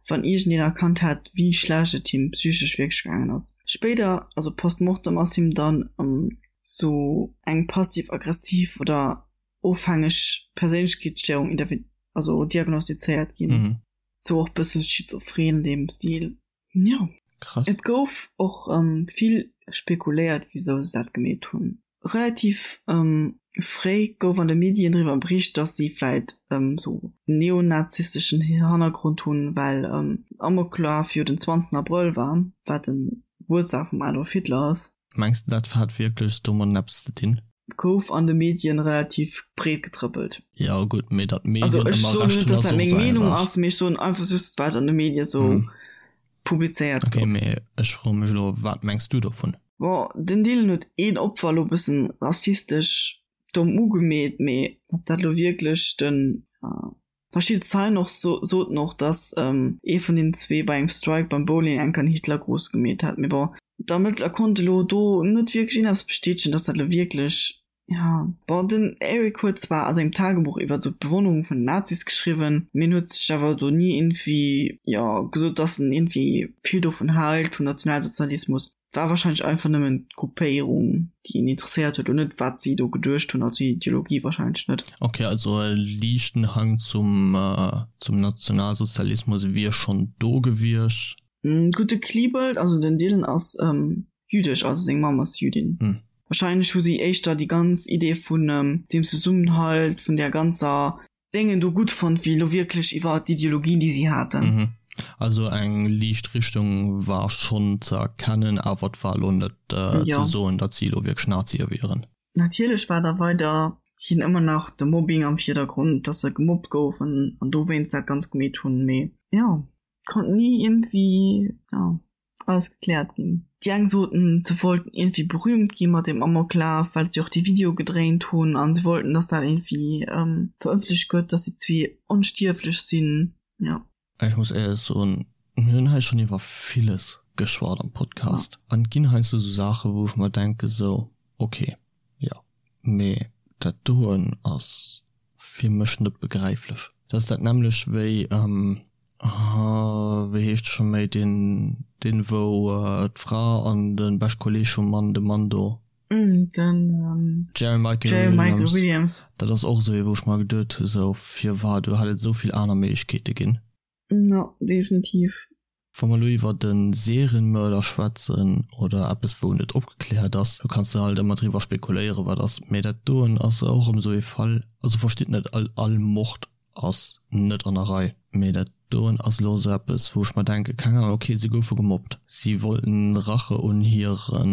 wann iergendeen erkannt hätt, wéi schlecht et him psychesch wierklech gaangen ass. Spéider, also post mortem, ass him dann sou eng passiv-aggressiv oder ofhängeg Perséinlechkeetsstéierung also diagnostizéiert ginn. Sou och bësse schizophren an deem Stil. Jo. Krass. Et gouf och vill spekuléiert, wisou se dat gemeet hunn. Relativ fréi gouf an de Medien driwwer bericht, datt si vläit sou neonazisteschen Hannergrond hunn, well Amoklaf jo den 20 Abrëll war, wat de Gebuertsdag vum Adolf Hitler ass. Mengs de dat hat wierklech domadden eppes ze dinn? Gouf an de Medien relativ breet getrëppelt. Jo gutt, mee datt d'Medien ëmmer Recht hunn ass och sou eng Saach. Also ech soen net, datt dat meng Meenung ass, mee ech soen einfach just wat an de Medie sou publizéiert gouf. Ok, mee ech froe mech elo, wat mengs du dovun? Bon, den Dylan huet een Opfer elo bëssen rassistesch domm ugemeet, mee ob dat elo wierklech den. Verschidde Zeien och soten och, datt ee vun den zwee bei engem Strike beim Bowling enk an Hitlergruß gemeet hätt. Mee bon, d'Ermëttler konnte lo do net wierklech een eppes bestätegen, datt dat lo wierklech. Ja, bon, den Eric huet zwar a sengem Tagebuch iwwer sou d'Bewonnerung vun den Nazis geschriwwen, mee en huet sech awer do ni iergendwéi, jo, gesot, dass en iergendwéi vill dovun hält, vum Nationalsozialismus. War wahrscheinlech einfach nëmmen d'Gruppéierung, déi en interesséiert huet, an net wat si do geduecht hunn, also déi Ideologie wahrscheinlech net. Ok, also e liichten Hang zum, zum Nationalsozialismus wier schonn do gewiescht. Gutt, de Klebold, also den Dylan ass jüdesch, also seng Mamm ass Jüdin. Wahrscheinlech hu si éischter déi ganz Idee vun deem Zesummenhalt, vun där ganzer. Déngen do gutt fonnt, wéi elo wierklech iwwer d'Ideologien, déi si haten. Also eng liicht Richtung war schonn ze erkennen, awer et war elo net ze soen, datt si elo wierklech Nazie wieren. Natierlech war da weiderhin ëmmer nach de Mobbing am Virdergrond, datt se gemobbt goufen an dowéinst dat Ganzt gemeet hunn, mee jo, konnt ni iergendwéi, jo. Alles gekläert ginn. Déi eng soten, se wollten iergendwéi berühmt gi mat deem Amoklaf, well se jo och dee Video gedréint hunn an se wollten, dass dat iergendwéi verëffentlecht gëtt, dass si zwee onstierflech sinn. Jo. Ech muss éierlech soen, mir hunn hei schonn iwwer villes geschwat am Podcast an et ginn heiansdo esou Saachen, wou ech mer denke sou, ok, jo, mee dat doen ass fir mech net begräiflech. Dat ass dat nämmlecht wéi, wéi heescht de scho méi, deen, deen wou d'Fra an de bescht Kolleeg vum Mann, de Mann do. Den Jerry Michael Williams. Dat ass och esou ee wou ech mer geduet hu sou, firwat, do hätt et esou vill aner Méiglechkeete ginn. Jo, definitiv. Wa mer elo iwwert e Serienmörder schwätzen oder eppes wou net opgekläert ass, do kanns de halt ëmmer driwwer spekuléieren wat ass, mee dat doen ass och erëm esou ee Fall, also verstitt net all all Mord ass net an der Rei, mee dat doen ass elo esou eppes wou ech mer denken, keng Ahnung, ok se goufe gemobbt, si wollten Rache un hire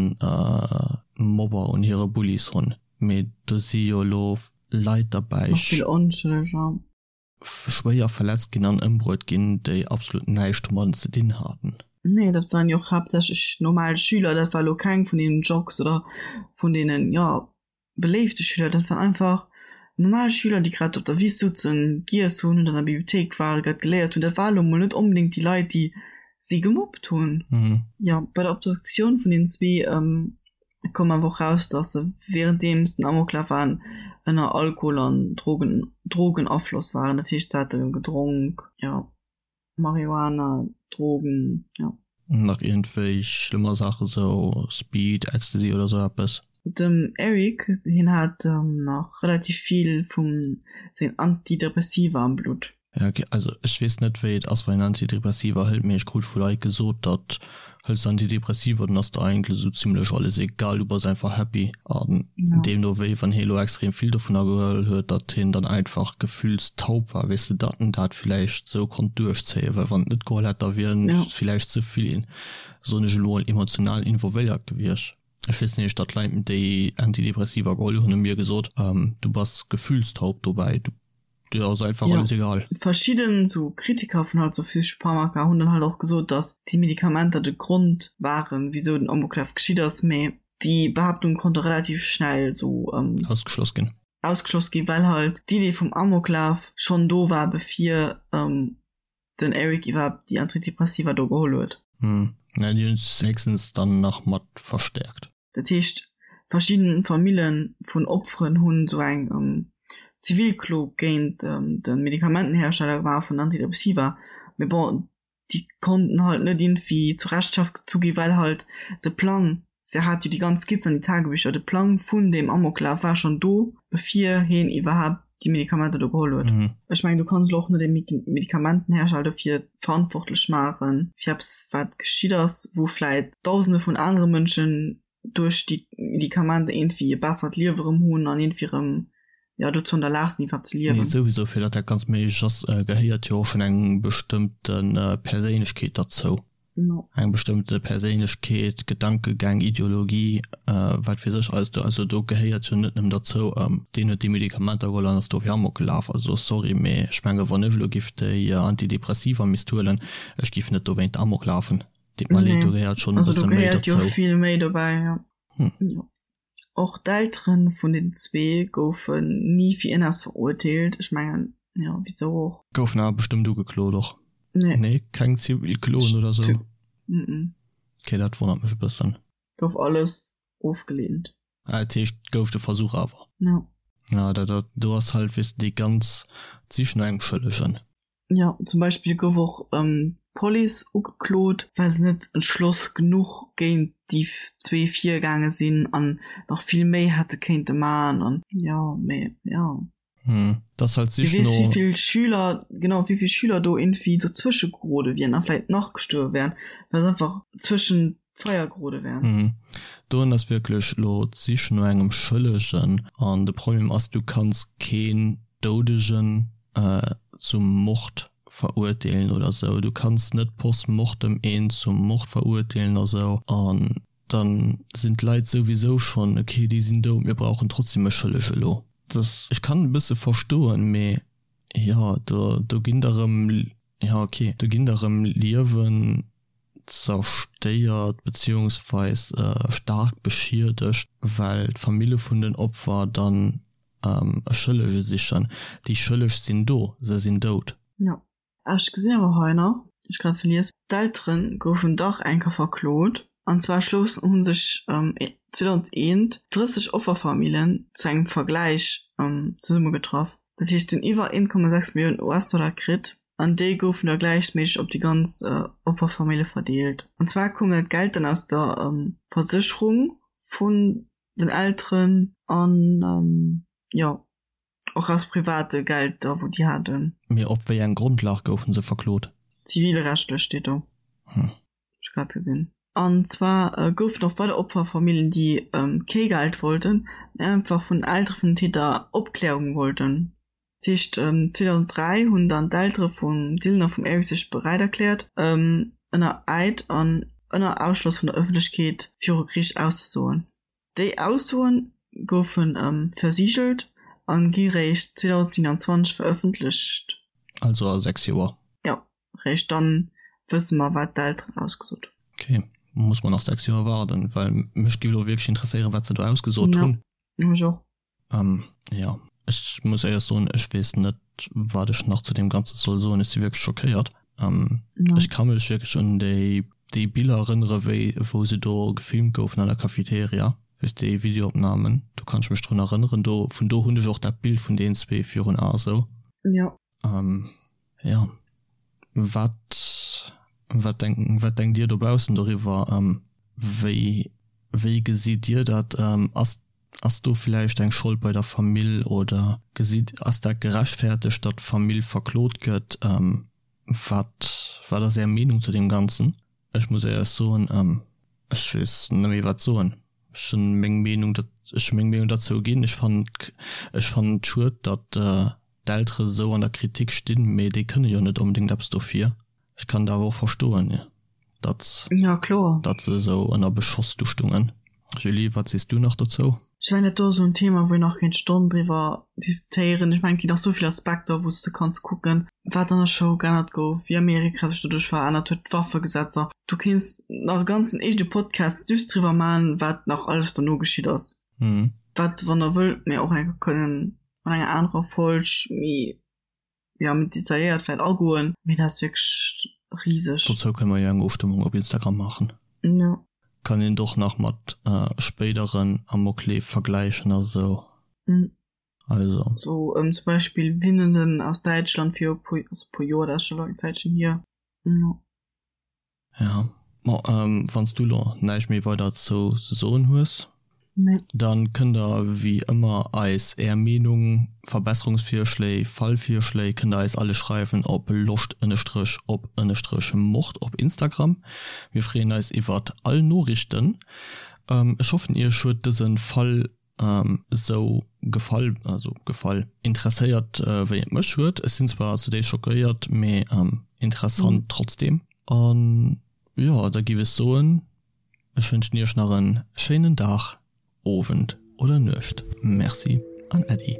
Mobber, un hire Bullies hunn, mee do si jo elo Leit derbäi, Nach vill Onschëlleger. Schwéier verletzt ginn an ëmbruet ginn, déi absolut näischt domadden ze dinn haten. Nee, dat waren jo och haaptsächlech normal Schüler, dat war elo keng vun deenen Jocks oder vun deenen, jo, beléifte Schüler, dat waren einfach normal Schüler, déi grad op der Wiss sutzen, giess hunn oder an der Bibliothéik waren, grad geléiert hunn. Dat war elo mol net onbedéngt déi Leit, déi si gemobbt hunn. Jo, bei der Obduktioun vun den zwee Et koum awer och raus, datt se wärenddeems den Amoklaf waren ënner Alkohol an Drogen Drogenafloss waren. Dat heescht, se hate gedronk, jo, Marihuana, Drogen, jo. Nach iergendwéi schlëmmer Saachen, sou Speed, Ecstasy oder sou eppes. Dem Eric, hien hat nach relativ vill vu sengen Antidepressiva am Blutt. Ja ok, also ech weess net wéi et ass wann een Antidepressiva hëlt, mee ech krut vu Leit gesot datt hëls de Antidepressiva dann ass der eigentlech esou zimlech alles egal, du bass einfach happy an deemno wéi wann hie elo extrem vill dovunner geholl huet, datt hien dann einfach gefühlstaub war, weess de, datt en dat villäicht esou konnt duerchzéien, well wann en et net geholl hätt da wier en villäicht ze vill, soen ech elo, emotional involvéiert gewiescht. Ech weess nämlech datt Leit déi Antidepressiva geholl hunn hu mir gesot, du bass gefühlstaub dobäi, du Dir ass einfach ja. alles egal. Verschidden sou Kritiker vun halt sou Psychopharmaka hunn dann halt och gesot, datt déi Medikamenter de Grond waren, wisou den Amoklaf geschitt ass, mee déi Behaaptung konnt och relativ schnell sou ähm, ausgeschloss ginn. Ausgeschloss ginn, well halt d'Idee vum Amoklaf schonn do war, bevir ähm, den Eric iwwerhaapt déi Antidepressiva do geholl huet. Hm, ja, déi hunn es héchstens dann nach mat verstäerkt. Dat heescht, verschidde Famille vun Opferen hunn esou eng Zivilklo géint de Medikamentenhersteller gemaach vun Antidepressiva, mee bon, déi konnten halt net iergendwéi zur Rechenschaft gezu ginn, well halt de Plang, se hat jo déi ganz Skizz an déi Tagebücher, de Plang vun deem Amoklaf war schonn do, bevir heen iwwerhaapt déi Medikamenter do geholl huet. Ech mengen, du kanns elo och net e Medikamentenhersteller dofir verantwortlech maachen, fir eppes wat geschitt ass, wou vläit Dausende vun anere Mënschen duerch déi Medikamenter iergendwéi e bessert Liewe erëm hunn an iergendwéi erëm, jo, dozou an der Lag sinn iwwerhaapt ze liewen. Nee, souwisou, fir datt dat Ganzt méiglech ass, gehéiert jo och schonn eng bestëmmte Perséinlechkeet derzou. Eng bestëmmte Perséinlechkeet, Gedankegäng, Ideologie, wat weess ech alles do. Also do gehéiert jo net nëmmen derzou, deen huet déi Medikamenter geholl an ass dofir Amok gelaf. Also sorry, mee ech menge wann ech elo giff déi Antidepressiva misst huelen, ech giff net dowéint Amok lafen. Deet mer leed, do gehéiert schonn e bësse méi derzou. Also do gehéiert jo vill méi dobäi, jo. Och d'Eltere vun den zwee goufen ni fir ierneppes verurteelt. Ech mengen, jo, wisou och? Goufen awer bestëmmt ugeklot och. Nee. Nee, keng Zivilkloen oder sou? Mm. Okay, dat wonnert mech e bëssen. Gouf alles ofgeleent. Ah, dat heescht, et gouf de Versuch awer. Jo. Ja, dat, dat, do ass halt, weess de, déi ganz d'Sich no engem Schëllegen. Jo, zum Beispill gouf och d'Police ugeklot, well se net entschloss genuch géint déi zwee virgaange sinn an nach vill méi hätte kéinte man an jo, mee jo. Hm, dat ass halt d'Sich no. Wie weess, wéi vill Schüler, genau, wéi vill Schüler do irgendwie dozwësche gerode wieren a vläit nach gestuerwe wären, well se einfach zwëschen d'Feier gerode wären. Hm, doen ass wierklech elo d'Sich no engem Schëllegen an de Problem ass, du kanns keen Doudegen zum Mord verurteelen oder sou. Du kanns net post mortem een zum Mord verurteelen a sou an dann sinn d'Leit souwisou schonn, ok, déi sinn dout, mir brauchen trotzdem e Schëlleg elo. Dass, ech kann e bësse verstoen, mee jo, do, do ginn der erëm, jo ok, do ginn der erëm Liewen zerstéiert beziehungsweis staark beschiedegt, well d'Famille vun den Opfer dann e Schëllege sichen. Déi Schëlleg sinn do, se sinn dout. Jo, ech gesinn awer hei nach, ech grad verlies, d'Eltere goufen dach eng Kéier verklot, an zwar schlouss hu sech 2001 30 Offerfamillen zu engem Vergläich zesummegetraff. Dat heescht, si hunn iwwer 1,6 Milliounen US-Dollar kritt, an déi goufen da gläichméisseg op déi ganz Opferfamille verdeelt. An zwar koum dat Geld dann aus der Versécherung vun den Elteren an jo och aus private Gelder wou déi haten. Mee op wéi eng Grondlag goufen se verklot? Zivilrechtlech steet do. Hm. Ech grad gesinn. An zwar goufen och weider Opferfamilljen déi kee Geld wollten, mee einfach vun den Eltere vun den Täter Opklärung wollten. Dat heescht 2003 hunn dann d'Eltere vum Dylan a vum Eric sech beräit erkläert, ënner Eid an ënner Ausschloss vun der Ëffentlechkeet viru Geriicht auszesoen. Déi Aussoe goufe versigelt a gi réischt 2027 verëffentlecht. Also a 6 Joer. Jo, réischt dann wësse mer, wat d'Elteren ausgesot hunn. Ok, muss mer nach 6 Joer waarden, well mech géif elo wierklech interesséieren, wat se do ausgesot hunn. Jo, mech och. Ähm, jo, ech muss éierlech soen, ech weess net, wat ech nach zu deem Ganze soll soen. Ech si wierklech schockéiert. Ähm, ja. Ech ka mech wierklech un déi, déi Biller erënnere wéi, wou se do gefilmt goufen an der Cafeteria, weess déi Videoopnamen, do kann ech mech drun erënneren. Do, vun do hunn ech och dat Bild vun deenen zwee virun Ae sou. Ja. Ähm, ja. Wat, wat denk, wat denkt Dir dobaussen doriwwer? Ähm, wéi, wéi gesitt Dir dat? Ähm, ass Ass do villäicht eng Schold bei der Famill oder gesitt, ass dat gerechtfertegt, datt d'Famill verklot gëtt? Wat, wat ass Är Meenung zu deem Ganzen? Ech muss éierlech soen, ech weess net méi wat soen. Ech hunn meng Meenung, ech hu meng Meenung derzou ginn. Ech fannen, ech fannen et schued, datt d'Eltere sou an der Kritik stinn, mee déi kënne jo net onbedéngt eppes dofir. Ech kann et awer och verstoen, datt Ja, kloer. datt se esou ënner Beschoss du stungen. Julie, wat sees du nach dozou? Ech mengen, dat do ass esou en Thema, wou een nach kéint Stonnen driwwer diskutéieren. Ech mengen, et ginn nach esou vill Aspekter, wou s de kanns kucken, wat an der Schoul geännert gouf, wéi Amerika sech doduerch verännert huet, d'Waffegesetzer. Du kéints nach e ganzen eegene Podcast just driwwer maachen, wat nach alles dono geschitt ass. Wat, wann der wëllt, mir och eng Kéier kënnen an enger anerer Folg méi ja, méi detailléiert vläit agoen, mee dat ass wierklech riseg. Dozou kënne mer jo eng Ofstëmmung op Instagram maachen. Jo. Kann een et och nach mat spéideren Amokleef vergläichen a sou. Also. Sou zum Beispill Winnenden aus Däitschland viru puer, also puer Joer, dat ass scho elo eng Zäitchen hier. Jo. Ja, bon, wann s du lo näischt méi weider dozou ze soen hues, dann kënnt der wéi ëmmer eis är Meenung, Verbesserungsvirschléi, Fallvirschléi kënnt der eis alle schreiwen op loscht ënnestrech op ënnestrech mord op Instagram. Mir freeën eis iwwert all Noriichten. Ech hoffen iech huet dësen Fall esou gefall, also gefall, interesséiert wéi et mech huet. Ech sinn zwar zudéifst schockéiert, mee interessant trotzdem. An jo, da giff ech soen, ech wënschen iech nach en schéinen Dag, Owend oder Nuecht. Merci an Äddi.